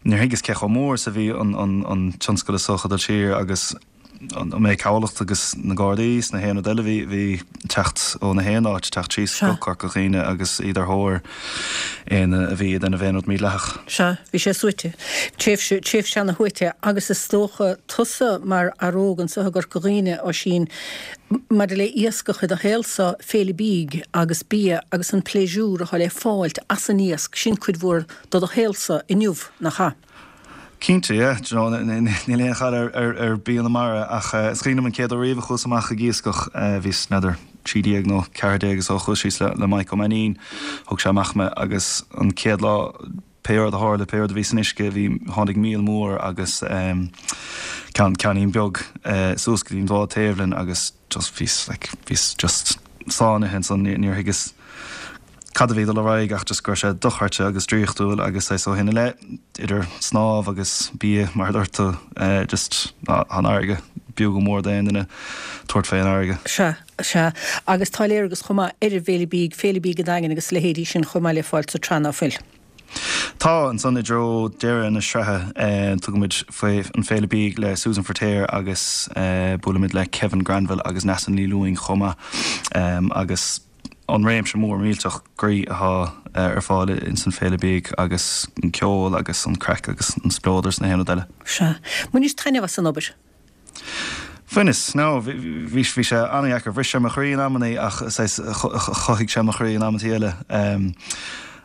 níor thuigeas cé chomh mór is a bhí an tionscal is dócha ag dul siar agus an méid cabhlacht agus na Gardaí is na haon rud eile bhí bhí teacht ó na haon áit, teacht síos go Corca Dhuibhne agus iad ar thóir éinne a bhí ag déanamh aon rud mídhleathach. Sea, bhí sé suaite. Tréimhse, tréimhse ana shuaite agus is dócha tusa mar fhear óg anso i gCorca Dhuibhne, Oisín, maidir le iascach i do shaolsa, féile bídh agus bia agus an pléisiúr atá le fáilt as an iasc, sin cuid mhór de do shaolsa inniu, nach ea? Cinnte, yeah. Do you know, níl aon chaill ar bia na mara ach is cuimhin liom an chéad uair riamh a chuas amach ag iascach, bhíos, n'fheadar, 13 nó 14 is dócha, chuas síos le Mike Ó Mainnín, thug sé amach mé agus an chéad lá, pé rud a tharla, pé rud a bhí san uisce, bhí, tháinig míol mór agus ceann, ceainnín beag suas go dtí an bhád taobh linn agus just bhíos like, bhíos just sáinnithe ansan, níor thuigeas cad a bhí ag dul ar aghaidh ach just go raibh sé dochreidte agus draíochtúil agus saghas ó shin i leith, idir snámh agus bia mar a dúirt tú, just tá an fharraige b'fhiú go mór d'aon duine tabhairt fén bhfarraige. Sea, sea. Agus tá léargas chomh maith ar an bhFéile Bídh, Féile Bídh an Daingin agus a leithéidí sin chomh maith le fáil sa tsraith ná fuil? Tá, ansan i dtreo deireadh na sraithe tugaimid faoi an Féile Bídh le Susan Feirtéar agus buailimid le Kevin Granville agus Neasa Ní Lúing chomh maith agus an réimse mór millteach groí atá ar fáil ins an Féile Bídh agus an ceol agus an craic agus an spleodar is na haon rud eile. Sea. Bhainis taitneamh as an obair? Bhaineas. No, bhí, bhí sé an-dheacair. Bhris sé mo chroí in amannaí ach saghas chothaigh sé mo chroí in amantaí eile.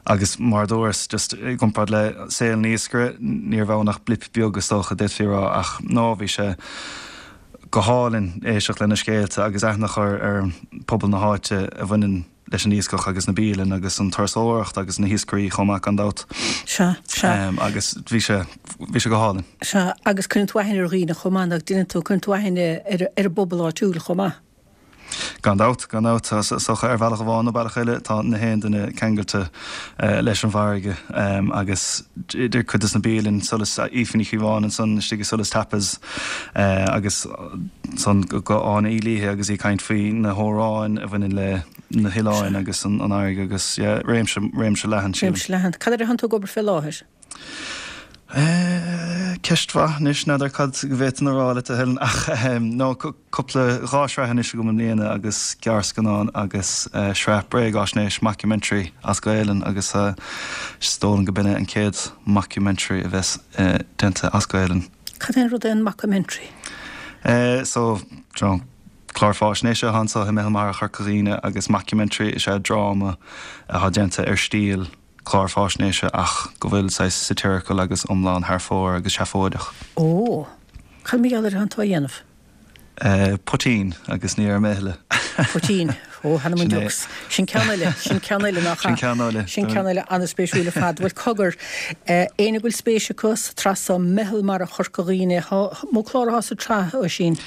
Agus mar a dúras, just i gcomparáid le saol an iascaire, ní raibh ann ach blip beag is dócha, d'fhéadfaí a rá ach no, bhí sé go hálainn éisteacht lena scéalta agus aithne a chur ar phobal na háite a bhaineann leis an iascach agus na bialanna agus an turasóireacht agus na hiascairí chomh maith gan dabht. Sea, sea. Agus bhí sé, bhí sé go hálainn. Sea, agus cuireann tú aithne ar dhaoine chomh maith, nach ndeineann tú, cuireann tú aithne ar, ar an bpobal áitiúil chomh maith. Gan dabht, gan dabht. Is dócha ar bhealach amháin nó bealach eile tá na haon duine ceangailte leis an bhfarraige agus idir cuid des na bialanna, Solas, Aoife Ní Chíobháin ansan istigh i Solas Tapas agus ansan go Áine Uí Laoithe agus í ag caint faoi na hamhráin a bhaineann le na hoileáin agus an fharraige agus yeah, réimse, réimse leathan sílim. Réimse leathan. Cad air atánn tú ag obair fé láthair? Ceist mhaith anois, n'fheadar cad go bhféadfainn a rá leat a Helen ach no cúpla, 2 shraith anois agam i mbliana agus gearrscannán agus sraith bréagáisnéis, mockumentary, as Gaelainn agus is dóigh liom go b'in é an chéad mockumentary a bheas déanta as Gaelainn. Cad é an rud é an mockumentary? So, do you know, clár fáisnéise atá anso i Meitheal Mara Chorca Dhuibhne agus mockumentary is ea dráma atá déanta ar stíl clár fáisnéise ach go bhfuil saghas satirical agus iomlán thar fóir agus seafóideach. Ó! Cad mar gheall air atánn tú á dhéanamh? Poitín agus ní déarfaidh mé a thuilleadh. Poitín. Ó, th'anam 'on deox. Sin ceann eile, sin ceann eile nach ea? Sin ceann eile. Sin ceann eile an-spéisiúil ar fad. Bhuel, cogar, éinne go bhfuil spéis acu sa tsraith so, Meitheal Mara Chorca Dhuibhne, thá, mó clár athá sa tsraith, Oisín?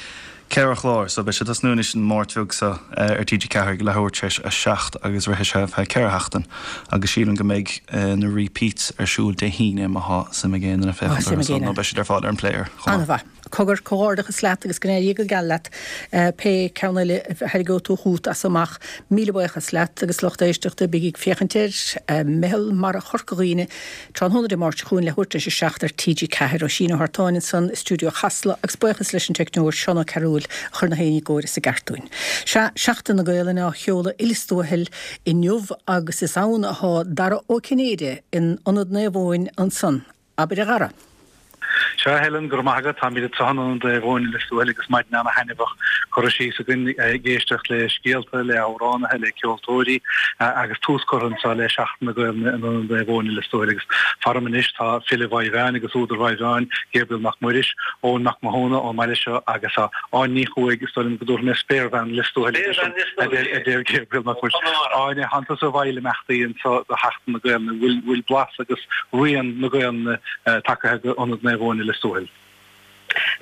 Ceithre chlár, so beidh sé ag tosnú anois an Máirt bheag seo ar TG4 ag leathuair tar éis a 7 agus rithfidh sé ar feadh ceithre sheachtain agus sílim go mbeidh na repeats ar siúl Dé hAoine má thá suim ag aon duine féachaint orthu so nó beidh siad ar fáil ar an player chomh maith. An-mhaith. Cogar, comhghairdeachas leat agus go n-éirí go geal leat pé ceann eile a thairgeoidh tú chugat as amach. Míle buíochas leat agus lucht éisteachta, bígí ag féachaint ar Meitheal Mara Chorca Dhuibhne tráthnóna Dé Máirt seo chugainn leathuair tar éis a 7 ar TG4. Oisín Ó hArtáin ansan i stiúideo Chasla agus buíochas leis an teicneoir Seán Ó Cearúil a chuir na haon ní i gcóir is i gceart dúinn. Sea, Seachtain na Gaelainne á sheoladh i Lios Tuathail inniu agus is ann athá Dara Ó Cinnéide in Ionad Naomh Eoin ansan. Abair a Dhara. Sea, a Helen, go raibh maith agat. Táimid anseo in Ionad Naomh Eoin i Lios Tuathail agus maidin ana-thaitneamhach curtha síos againn ag éisteacht le scéalta, le hamhránaithe, le ceoltóirí agus tús curtha anseo le Seachtain na Gaelainne in Ionad Naomh Eoin i Lios Tuathail agus faram anois tá file Mhaigh Mheáin agus údar Mhaigh Mheáin, Gabriel Mac Muiris, Eoin Mac Mathúna ón mbaile seo agus Áine Ní Chuaig, is dóigh liom go dtabharfaidh mé Spéirbhean Lios Tuathail a deir Gabriel Mac Muiris. Áine, thánn tusa i bhfeighil imeachtaí anseo do Sheachtain na Gaelainne, bhfuil blas agus rian na Gaelainne tagtha go Ionad Naomh Eoin i Lios Tuathail.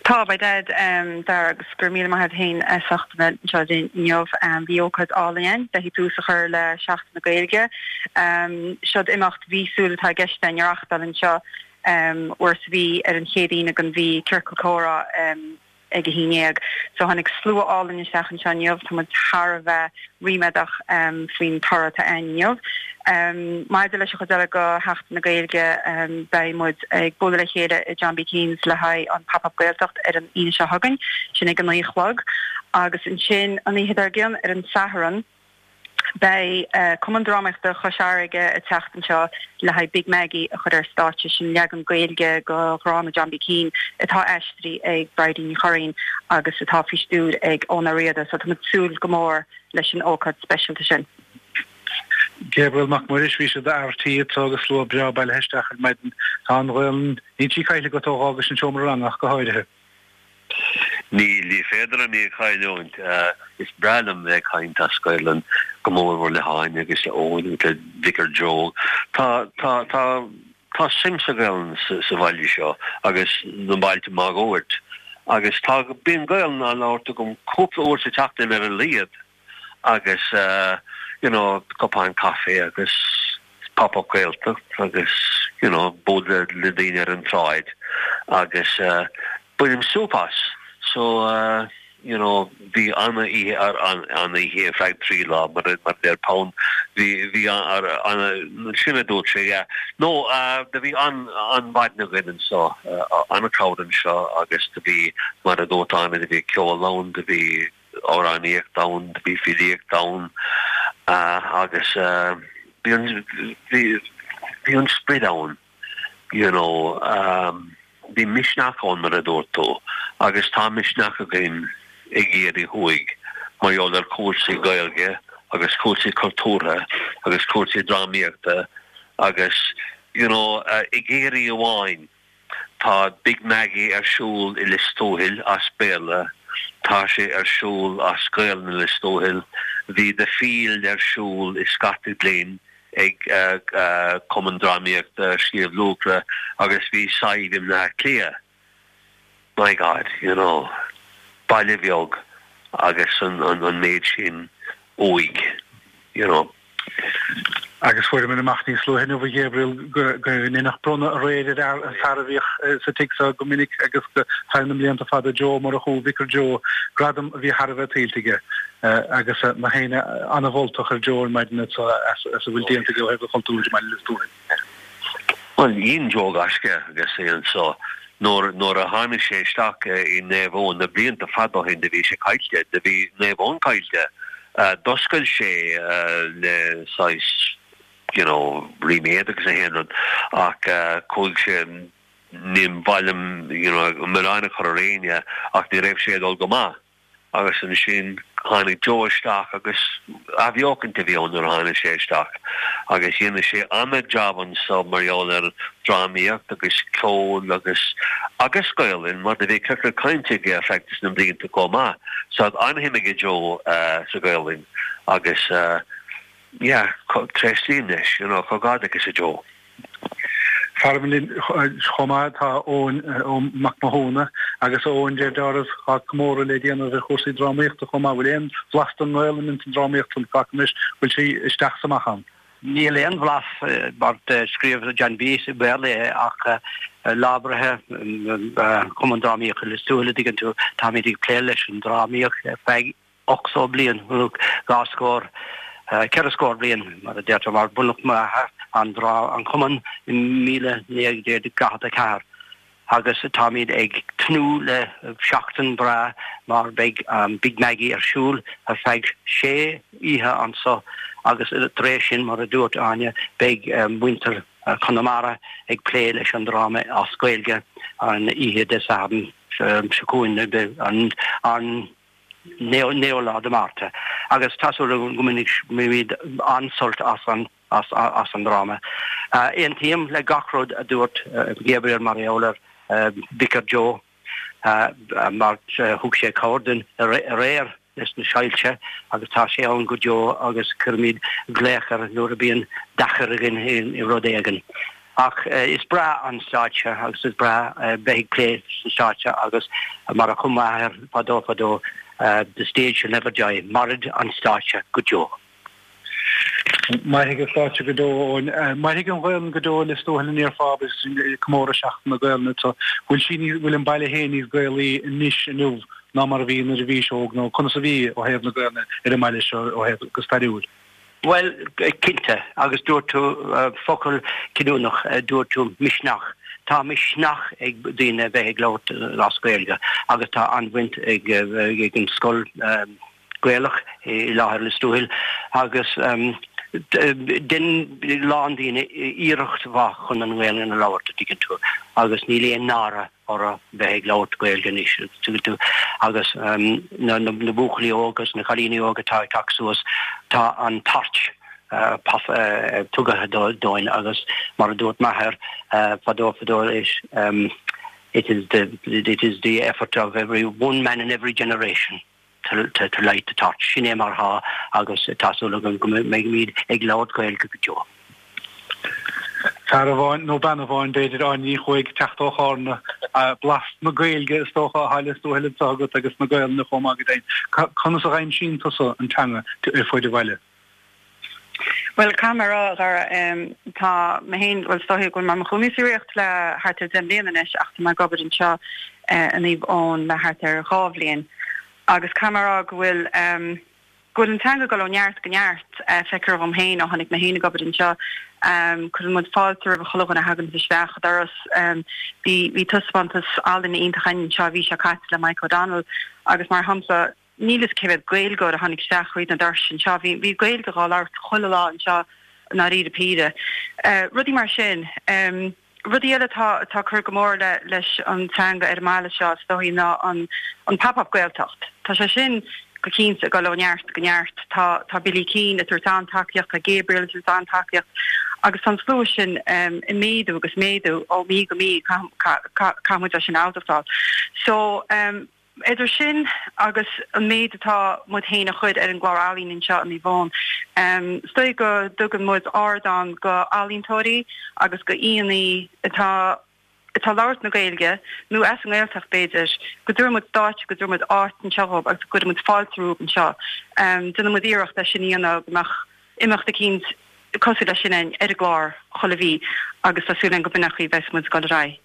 Tá, by dad, Dara, agus go raibh míle maith agat féin as ucht a bheith anseo linn inniu. Bhí ócáid álainn ann le haghaidh tús a chur le Seachtain na Gaeilge. Seod imeacht mhíosúil atá i gceist againn a reachtáil anseo uair sa mhí ar an chéad Aoine den mhí, Ciorcal Comhrá. ag a haon dhéag. So tháinig slua álainn isteach anseo inniu, tá muid thar a bheith ríméadach faoin toradh atá ann inniu. Maidir leis an chuid eile de Sheachtain na Gaeilge, beidh muid ag bualadh le chéile i John B. Keane's le haghaidh an Pop Up Gaeltacht ar an Aoine seo chugainn, sin ag a naoi a chlog. Agus ansin an oíche dár gcionn ar an Satharn, Beidh Cumann Drámaíochta Chois Fharraige ag teacht anseo le haghaidh Big Maggie a chur ar stáitse, sin leagan Gaeilge de dhráma John B. Keane atá aistrithe ag Bridie Ní Churraoin agus atá faoi stiúir ag Eoin Ó Riada, so tá muid ag súil go mór leis an ócáid speisialta sin. Gabriel Mac Muiris, bhí siad ar tí anseo agus slua breá bailithe isteach ar maidin. Tá an Ghaelainn, níl sí caillte agat ó dh'fhágais an seomra ranga ach go háirithe. Níl, ní féidir liom í a chailliúint. Is breá liom bheith ag caint as Gaelainn, go mórmhór le hÁine agus le Eoin agus le Vicar Joe. Tá, tá, tá, tá suim sa Ghaelainn sa bhaile seo agus na bailte máguaird. Agus tá, bíonn Gaelainn á labhairt agam cúpla uair sa tseachtain ar a laghad. agus you know cupán caife agus pop up Gaeltacht agus you know bualadh le daoine ar an tsráid agus bainim súp as so you know bhí ana-oíche ar an-oíche ar feadh 3 lá mar mar a deir Pound bhí bhí an sin a dúirt sé yeah no do bhí an an-mhaidin againn anseo an-crowd anseo agus do bhí mar a dúirt Áine do bhí ceol ann do bhí amhránaíocht ann, do bhí filíocht ann agus bhí an, bhí, bhí an sprid ann, you know, bhí misneach ann mar a dúirt tú agus tá misneach againn i gCiarraí Thuaidh mar gheall ar chúrsaí Gaeilge agus cúrsaí cultúrtha agus cúrsaí drámaíochta agus, you know, i gCiarraí amháin. Tá Big Maggie ar siúl i Lios Tuathail as Béarla, tá sé ar siúl as Gaelainn i Lios Tuathail, bhí The Field ar siúl i Scartaglin ag Cumann Drámaíochta Shliabh Luachra agus bhí Sadhbh i mBleá Cliath. My God, you know, baile bheag agus an méid sin uaidh, you know. Agus fuaireamar amach níos luaithe inniu, a Ghabriel, go ndeineadh bronnadh aréir ar an fear a bhíodh sa tigh seo go minic agus go feadh na mblianta fada, Joe Ó Murchú, Vicar Joe, gradam a bhí thar a bheith tuillte aige. Agus gach éinne an-mholtach ar Joe ar maidin as a bhfuil déanta aige ó thaobh an chultúir i mBaile Lios Tuathail. Bhuel, dhein Joe gaisce agus é anso. Nuair, nuair a tháinig sé isteach i Naomh Eoin na blianta fada ó shin do bhí sé caillte, do bhí Naomh Eoin caillte. D'oscail sé le saghas you know ríméad agus na haon rud ach chuaigh sé, ní mhaith liom you know milleán a chur ar éinne ach ní raibh sé ag dul go maith agus ansin tháinig Joe isteach agus athbheochaint a bhí ann nuair a tháinig sé isteach agus dhein sé an-jab anso mar gheall ar drámaíocht agus ceol agus agus Gaolainn mar do bhí ciorcal cainte aige ar feadh na mblianta chomh maith. So tá an-shuim aige Joe sa Ghaolainn. Agus yeah, tréaslaím leis, you know, comhghairdeachas a Joe. Faram linn chomh maith tá Eoin Mac Mathúna agus Eoin deir deáramh tá comóradh le déanamh ar chúrsaí drámaíochta chomh maith. Bhfuil aon bhlas den nGaelainn ins an drámaíocht san glacaim leis, bhfuil sí isteach is amach ann? Níl aon bhlas mar scríobh John B i mBéarla é ach Lá Breithe Chumann Drámaíochta Lios Tuathail a dtuigeann tú, táimid ag plé leis an drámaíocht ar feadh 80 bliain, nó dhá scór, ceithre scór bliain mar a deirtear, mar bunaíodh m'athair an an cumann i 1944. Agus táimid ag tnúth le seachtain breá mar beidh Big Maggie ar siúl ar feadh sé oíche anso agus tar éis sin, mar a dúirt Áine, beidh muintir Chonamara ag plé leis an dráma as Gaeilge an oíche Dé Sathairn seo chugainn, an 9ú lá de Márta. Agus tá súil agam go mbainfimid an-sult as an as an dráma. Aontaím le gach rud a dúirt Gabriel mar gheall ar Vicar Joe mar thug sé cabhair dúinn aréir leis na soilse agus tá sé ann go deo agus cuirimid glaoch air nuair a bíonn deacair againn i rud éigin. Ach is breá an stáitse agus is breá bheith ag plé sa stáitse agus mar a chum m'athair fadó fadó, the stage shall never die, mairfidh an stáitse go deo. Mairfidh an stáitse go deo, Eoin. Mairfidh an Ghaelainn go deo i Lios Tuathail an ndéarfá agus ag comóradh Seachtain na Gaelainne anseo. Bhfuil sí níos, bhfuil an baile féin níos Gaelaí anois inniu ná mar a bhí nuair a bhís óg nó conas a bhí ó thaobh na Gaelainne ar an mbaile seo ó thaobh go stairiúil? Bhuel, cinnte, agus dúirt tú focal cinniúnach, dúirt tú misneach. Tá misneach ag daoine a bheith ag labhairt as Gaeilge agus tá an-bhaint ag an scoil, Gaelach i láthair Lios Tuathail agus dein a lán daoine iarracht mhaith chun an Ghaelainn a labhairt, a dtuigeann tú, agus níl aon náire orthu bheith ag labhairt Gaeilge anois, a dtuigeann tú, agus na buachaillí óga agus na cailíní óga atá ag teacht suas, tá an torch tugtha dóibh agus mar a dúirt m'athair fadó fadó is it is the it is the effort of every one man in every generation. to to light the torch. Sin é mar atá agus tá súil agam go mbeimid ag labhairt Gaeilge go deo. Fear amháin, nó bean amháin b'fhéidir, Áine Ní Chuaig, teacht ó Chárna, blas na Gaeilge is dócha atá i Lios Tuathail anseo agat agus na Gaelainne chomh maith go deimhin. Conas a dh'aimsíonn tusa an teanga ar fuaid an bhaile? Bhuel, caithfidh mé a rá, a Dhara, tá mé féin, bhuel, is dóichí go bhfuil mé i mo chónaí sa Ríocht le thart ar 10 mbliana anois ach tá mé ag obair anseo i Naomh Eoin le thart ar dhá bhliain agus caithfidh mé a rá go bhfuil, go bhfuil an teanga ag dul ó neart go neart. Feictear dhom féin ó tháinig mé féin ag obair anseo, cuireann muid fáilte roimh chuile dhuine a thagann isteach an doras. Bhí, bhí taispeántas ealaíne iontach againn anseo an mhí seo caite le Mike O'Donnell agus mar shampla, Níl fhios cé mhéad Gaeilgeoir a tháinig isteach thríd na doirse anseo. Bhí bhí Gaeilge dhá labhairt chuile lá anseo i ndáiríre píre. Rudaí mar sin. Rudaí eile atá atá ag cur go mór le leis an teanga ar an mbaile seo is dóichí ná an an Pop Up Gaeltacht. Tá sé sin go cinnte ag dul ó neart go neart. Tá tá Billy Keane ag tabhairt an-tacaíocht, tá Gabriel ag tabhairt an-tacaíocht agus tá an slua sin ag méadú agus méadú ó mhí go mí caithfidh muid é sin a admháil. So. Idir sin agus an méid atá muid féin a chur ar an gclár ealaíon anseo i Naomh Eoin, is dóigh go dtugann muid ardán go ealaíontóirí agus go aíonna atá atá ag labhairt na Gaeilge, nó as an nGaeltacht b'fhéidir, go dtabharann muid stáitse, go dtabharann muid áit anseo dhóibh agus go gcuireann muid fáilte rompu anseo. Déanann muid iarracht é sin a dhéanamh, go mbeadh imeacht eicínt cosúil leis sin ar an gclár chuile mhí agus tá súil againn go b'in an chaoi a bheas muid ag dul ar aghaidh.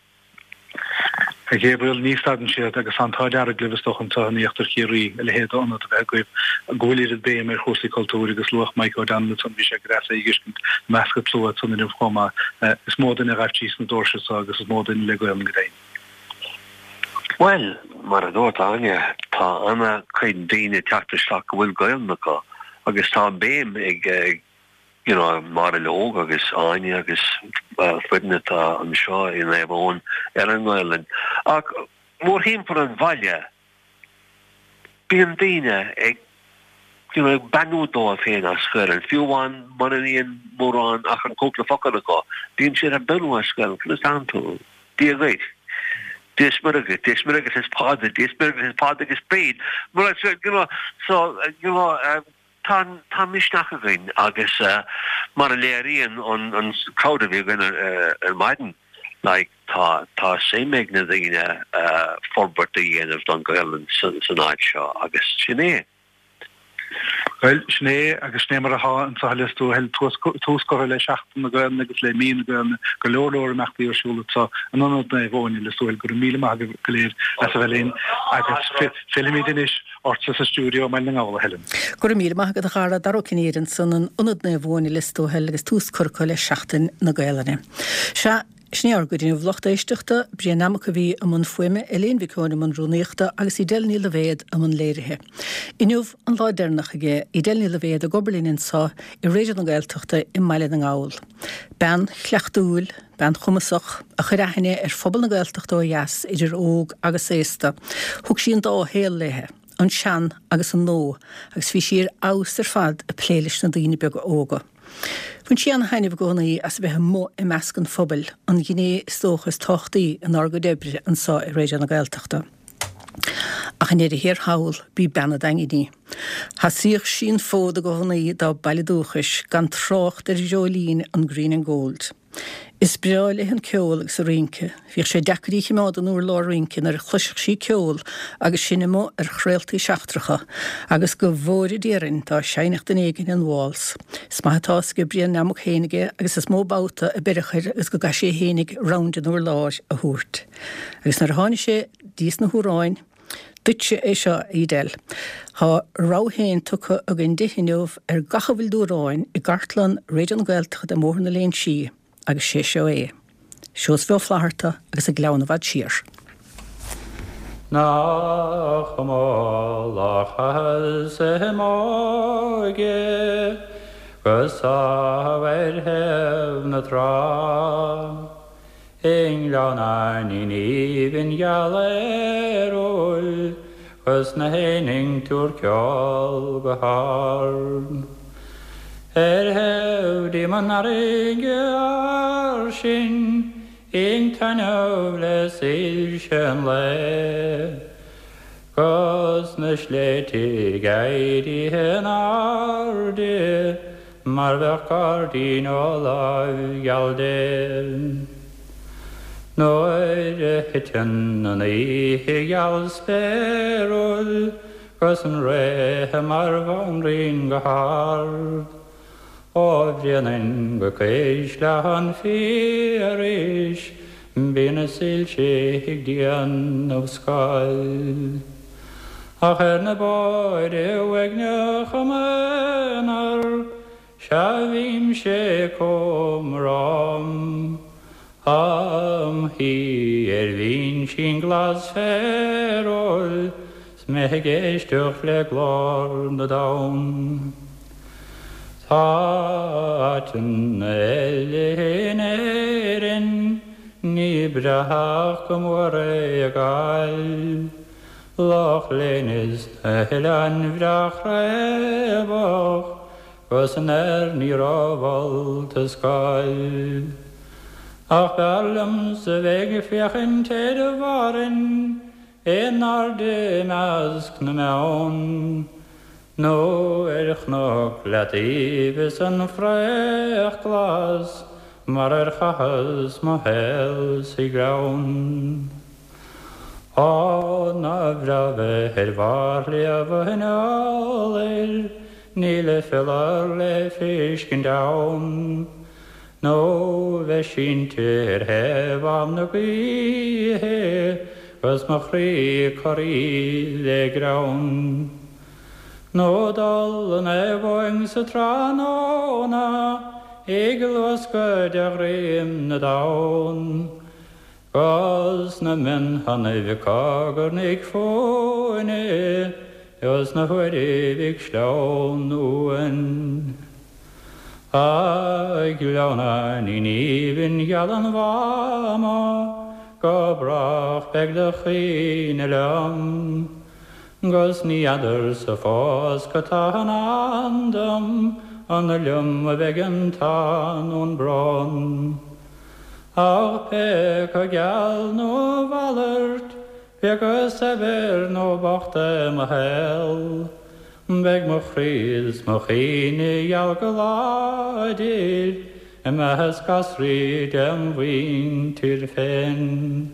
A Ghabriel, ní stadann siad agus tá an t-ádh dearg libh is dócha anseo in íochtar Chiarraí a leithéid d'ionad a bheith agaibh go bhfuil oiread béim ar chúrsaí cultúir agus luadh Mike O'Donnell ansan bhí sé go deas é a dh'fheiscint i measc an tslua ansan inniu chomh maith. Is mó duine a ghabh síos na doirse seo agus is mó duine le Gaolainn go deimhin. Bhuel, mar a dúirt Áine, tá ana chuid daoine ag teacht isteach go bhfuil Gaolainn acu agus tá béim ag you know, Máire Leog agus Áine agus foireann atá anseo i Naomh Eoin ar an nGaelainn. Ach mórthimpeall an bhaile, bíonn daoine ag, you know, ag beannú dóibh féin as Gaelainn, fiú amháin mura mbíonn mórán ach an cúpla focal acu, bíonn siad ag beannú as Gaelainn, conas tánn tú? Dia dhuit. Dia is Muire dhuit, Dia is Muire agus is Pádraig, Dia is Muire agus is Pádraig is Bríd. Mar, you know, so, you know, um,. tá tá misneach againn agus mar a léiríonn an an crowd a bhí againn ar maidin, like tá tá suim ag na daoine forbairt a dhéanamh don Ghaelainn san áit seo agus sin é. Bhuel, sin é agus sin é mar atá anseo i Lios Tuathail, tús curtha le Seachtain na Gaelainne agus le Mí na Gaelainne, go leor leor imeachtaí ar siúl anseo in Ionad Naomh Eoin i Lios Tuathail. Go raibh míle maith agaibh go léir as a bheith linn agus fillfimid anois ortsa sa stiúideo i mBaile na nGall, a Helen. Go raibh míle maith agat a Dhara, Dara Ó Cinnéide ansan in Ionad Naomh Eoin i Lios Tuathail agus tús curtha acu le Seachtain na Gaelainne. Sea, Sin é ár gcuid inniu, lucht éisteachta, Brian Nammock a bhí i mbun fuaime, Elaine Mhic Eoin i mbun rúnaíochta agus Edel Ní Loibhéad i mbun léirithe. Inniu an lá deireanach aige Edel Ní Loibhéad ag obair linn anseo i Raidió na Gaeltachta i mBaile na nGall. Bean chleachtúil, bean chumasach, a chuir aithne ar phobal na Gaeltachta ó dheas, idir óg agus aosta. Thug sí an dá shaol léithe, an sean agus an nua, agus bhí sí ar fheabhas ar fad ag plé leis na daoine beaga óga. Bhain sí an-taitneamh i gcónaí as a bheith amuigh i measc an phobail, an ghné is dócha is tábhachtaí inár gcuid oibre anseo i Raidió na Gaeltachta. Ach i ndeireadh thiar thall, b'í bean an Daingin í. Sheasaíodh sí an fód i gcónaí dá baile dúchais, gan trácht ar dhreoilín an Green and Gold. Is breá léi an ceol agus an rince. Bhíodh sé deacair í a chimeád in urlár rince nuair a chloisfeadh sí ceol agus sinn amuigh ar chraoltaí seachtracha, agus go bhfóire Dia orainn dá seinnfeadh duine éigin an waltz. Is maith atá fhios ag Brian Nammock fhéinig é agus is mó babhta a beireadh air agus go gcaithfidh sé fhéinig round an urláir a thabhairt. Agus nuair a tháinig sé dtís na hamhráin, Duitse é seo, a Edel. Tá a rogha féin tugtha againn di inniu ar gach a bhfuil d'amhráin i gcartlann Raidió na Gaeltachta i mBóthar na Léinsí agus sé seo é. Seosamh Ó Flatharta agus An Gleann i bhFad Siar. Nach cuma lá chaitheas i m'óige 'gus sámh ar thaobh na trá. I nGleann Fhainnín aoibhinn geal aerúil 'Gus na héin ag tabhairt ceol go hard. Ar thaobh díom an fharraige fhairsing Ag taitneamh le soilse an lae 'Gus na sléibhte ag éirí in airde Mar bheadh gairdín ó láimh gheal Dé. Nuair a thiteann an oíche gheal spéiriúil 'Gus an ré mar bhanríon go hard, Ó Bhréanainn go Cuisle an Phiarais Bíonn na soilse ag déanamh scáil. Ach ar na bóithre uaigneacha m'aonar, sea bhímse chomh rom, Am shuí ar bhinsín glas féarúil 's mé ag éisteacht le glór na dtonn. Tá áiteanna eile in Éirinn ní breátha ach go mór é a Ghaillimh. Loch Léin is na hoileáin bhreá chraobhach 'Gus an airní rómholta scáil. Ach b'fhearr liomsa bheith ag féachaint ar Bhárainn In airde i measc na mbeann, Nó ar chnoc Leataoibh is an fraoch glas Mar ar chaitheas mo shaol sa ghleann. Á, nár bhreá bheith ar bharr Shliabh an Iolair, Níl a phiolar le feiscint ann, Nó bheith sínte ar thaobh Mhám na gaoithe 'Gus mo chroí corraithe le greann. Nó dul in abhainn sa tráthnóna Ag luascadh de dhroim na dtonn, 'Gus na mionthonnaibh ag cogarnaigh fúinne 'Gus na huairibh ag sleamhnú uainn. A Ghleann Fhainnín aoibhinn gheal an Mháma, Go brách beidh do chuimhne liom, 'Gus ní fheadarsa fós cad tá i ndán dom, An liom a bheidh an t-ádh nó an brón. Ach pé acu geal nó a mhalairt, pé acu saibhir nó bocht é mo shaol. Beidh mo chroí 's mo chuimhne gheal go láidir i measc gasraí dem mhuintir féin.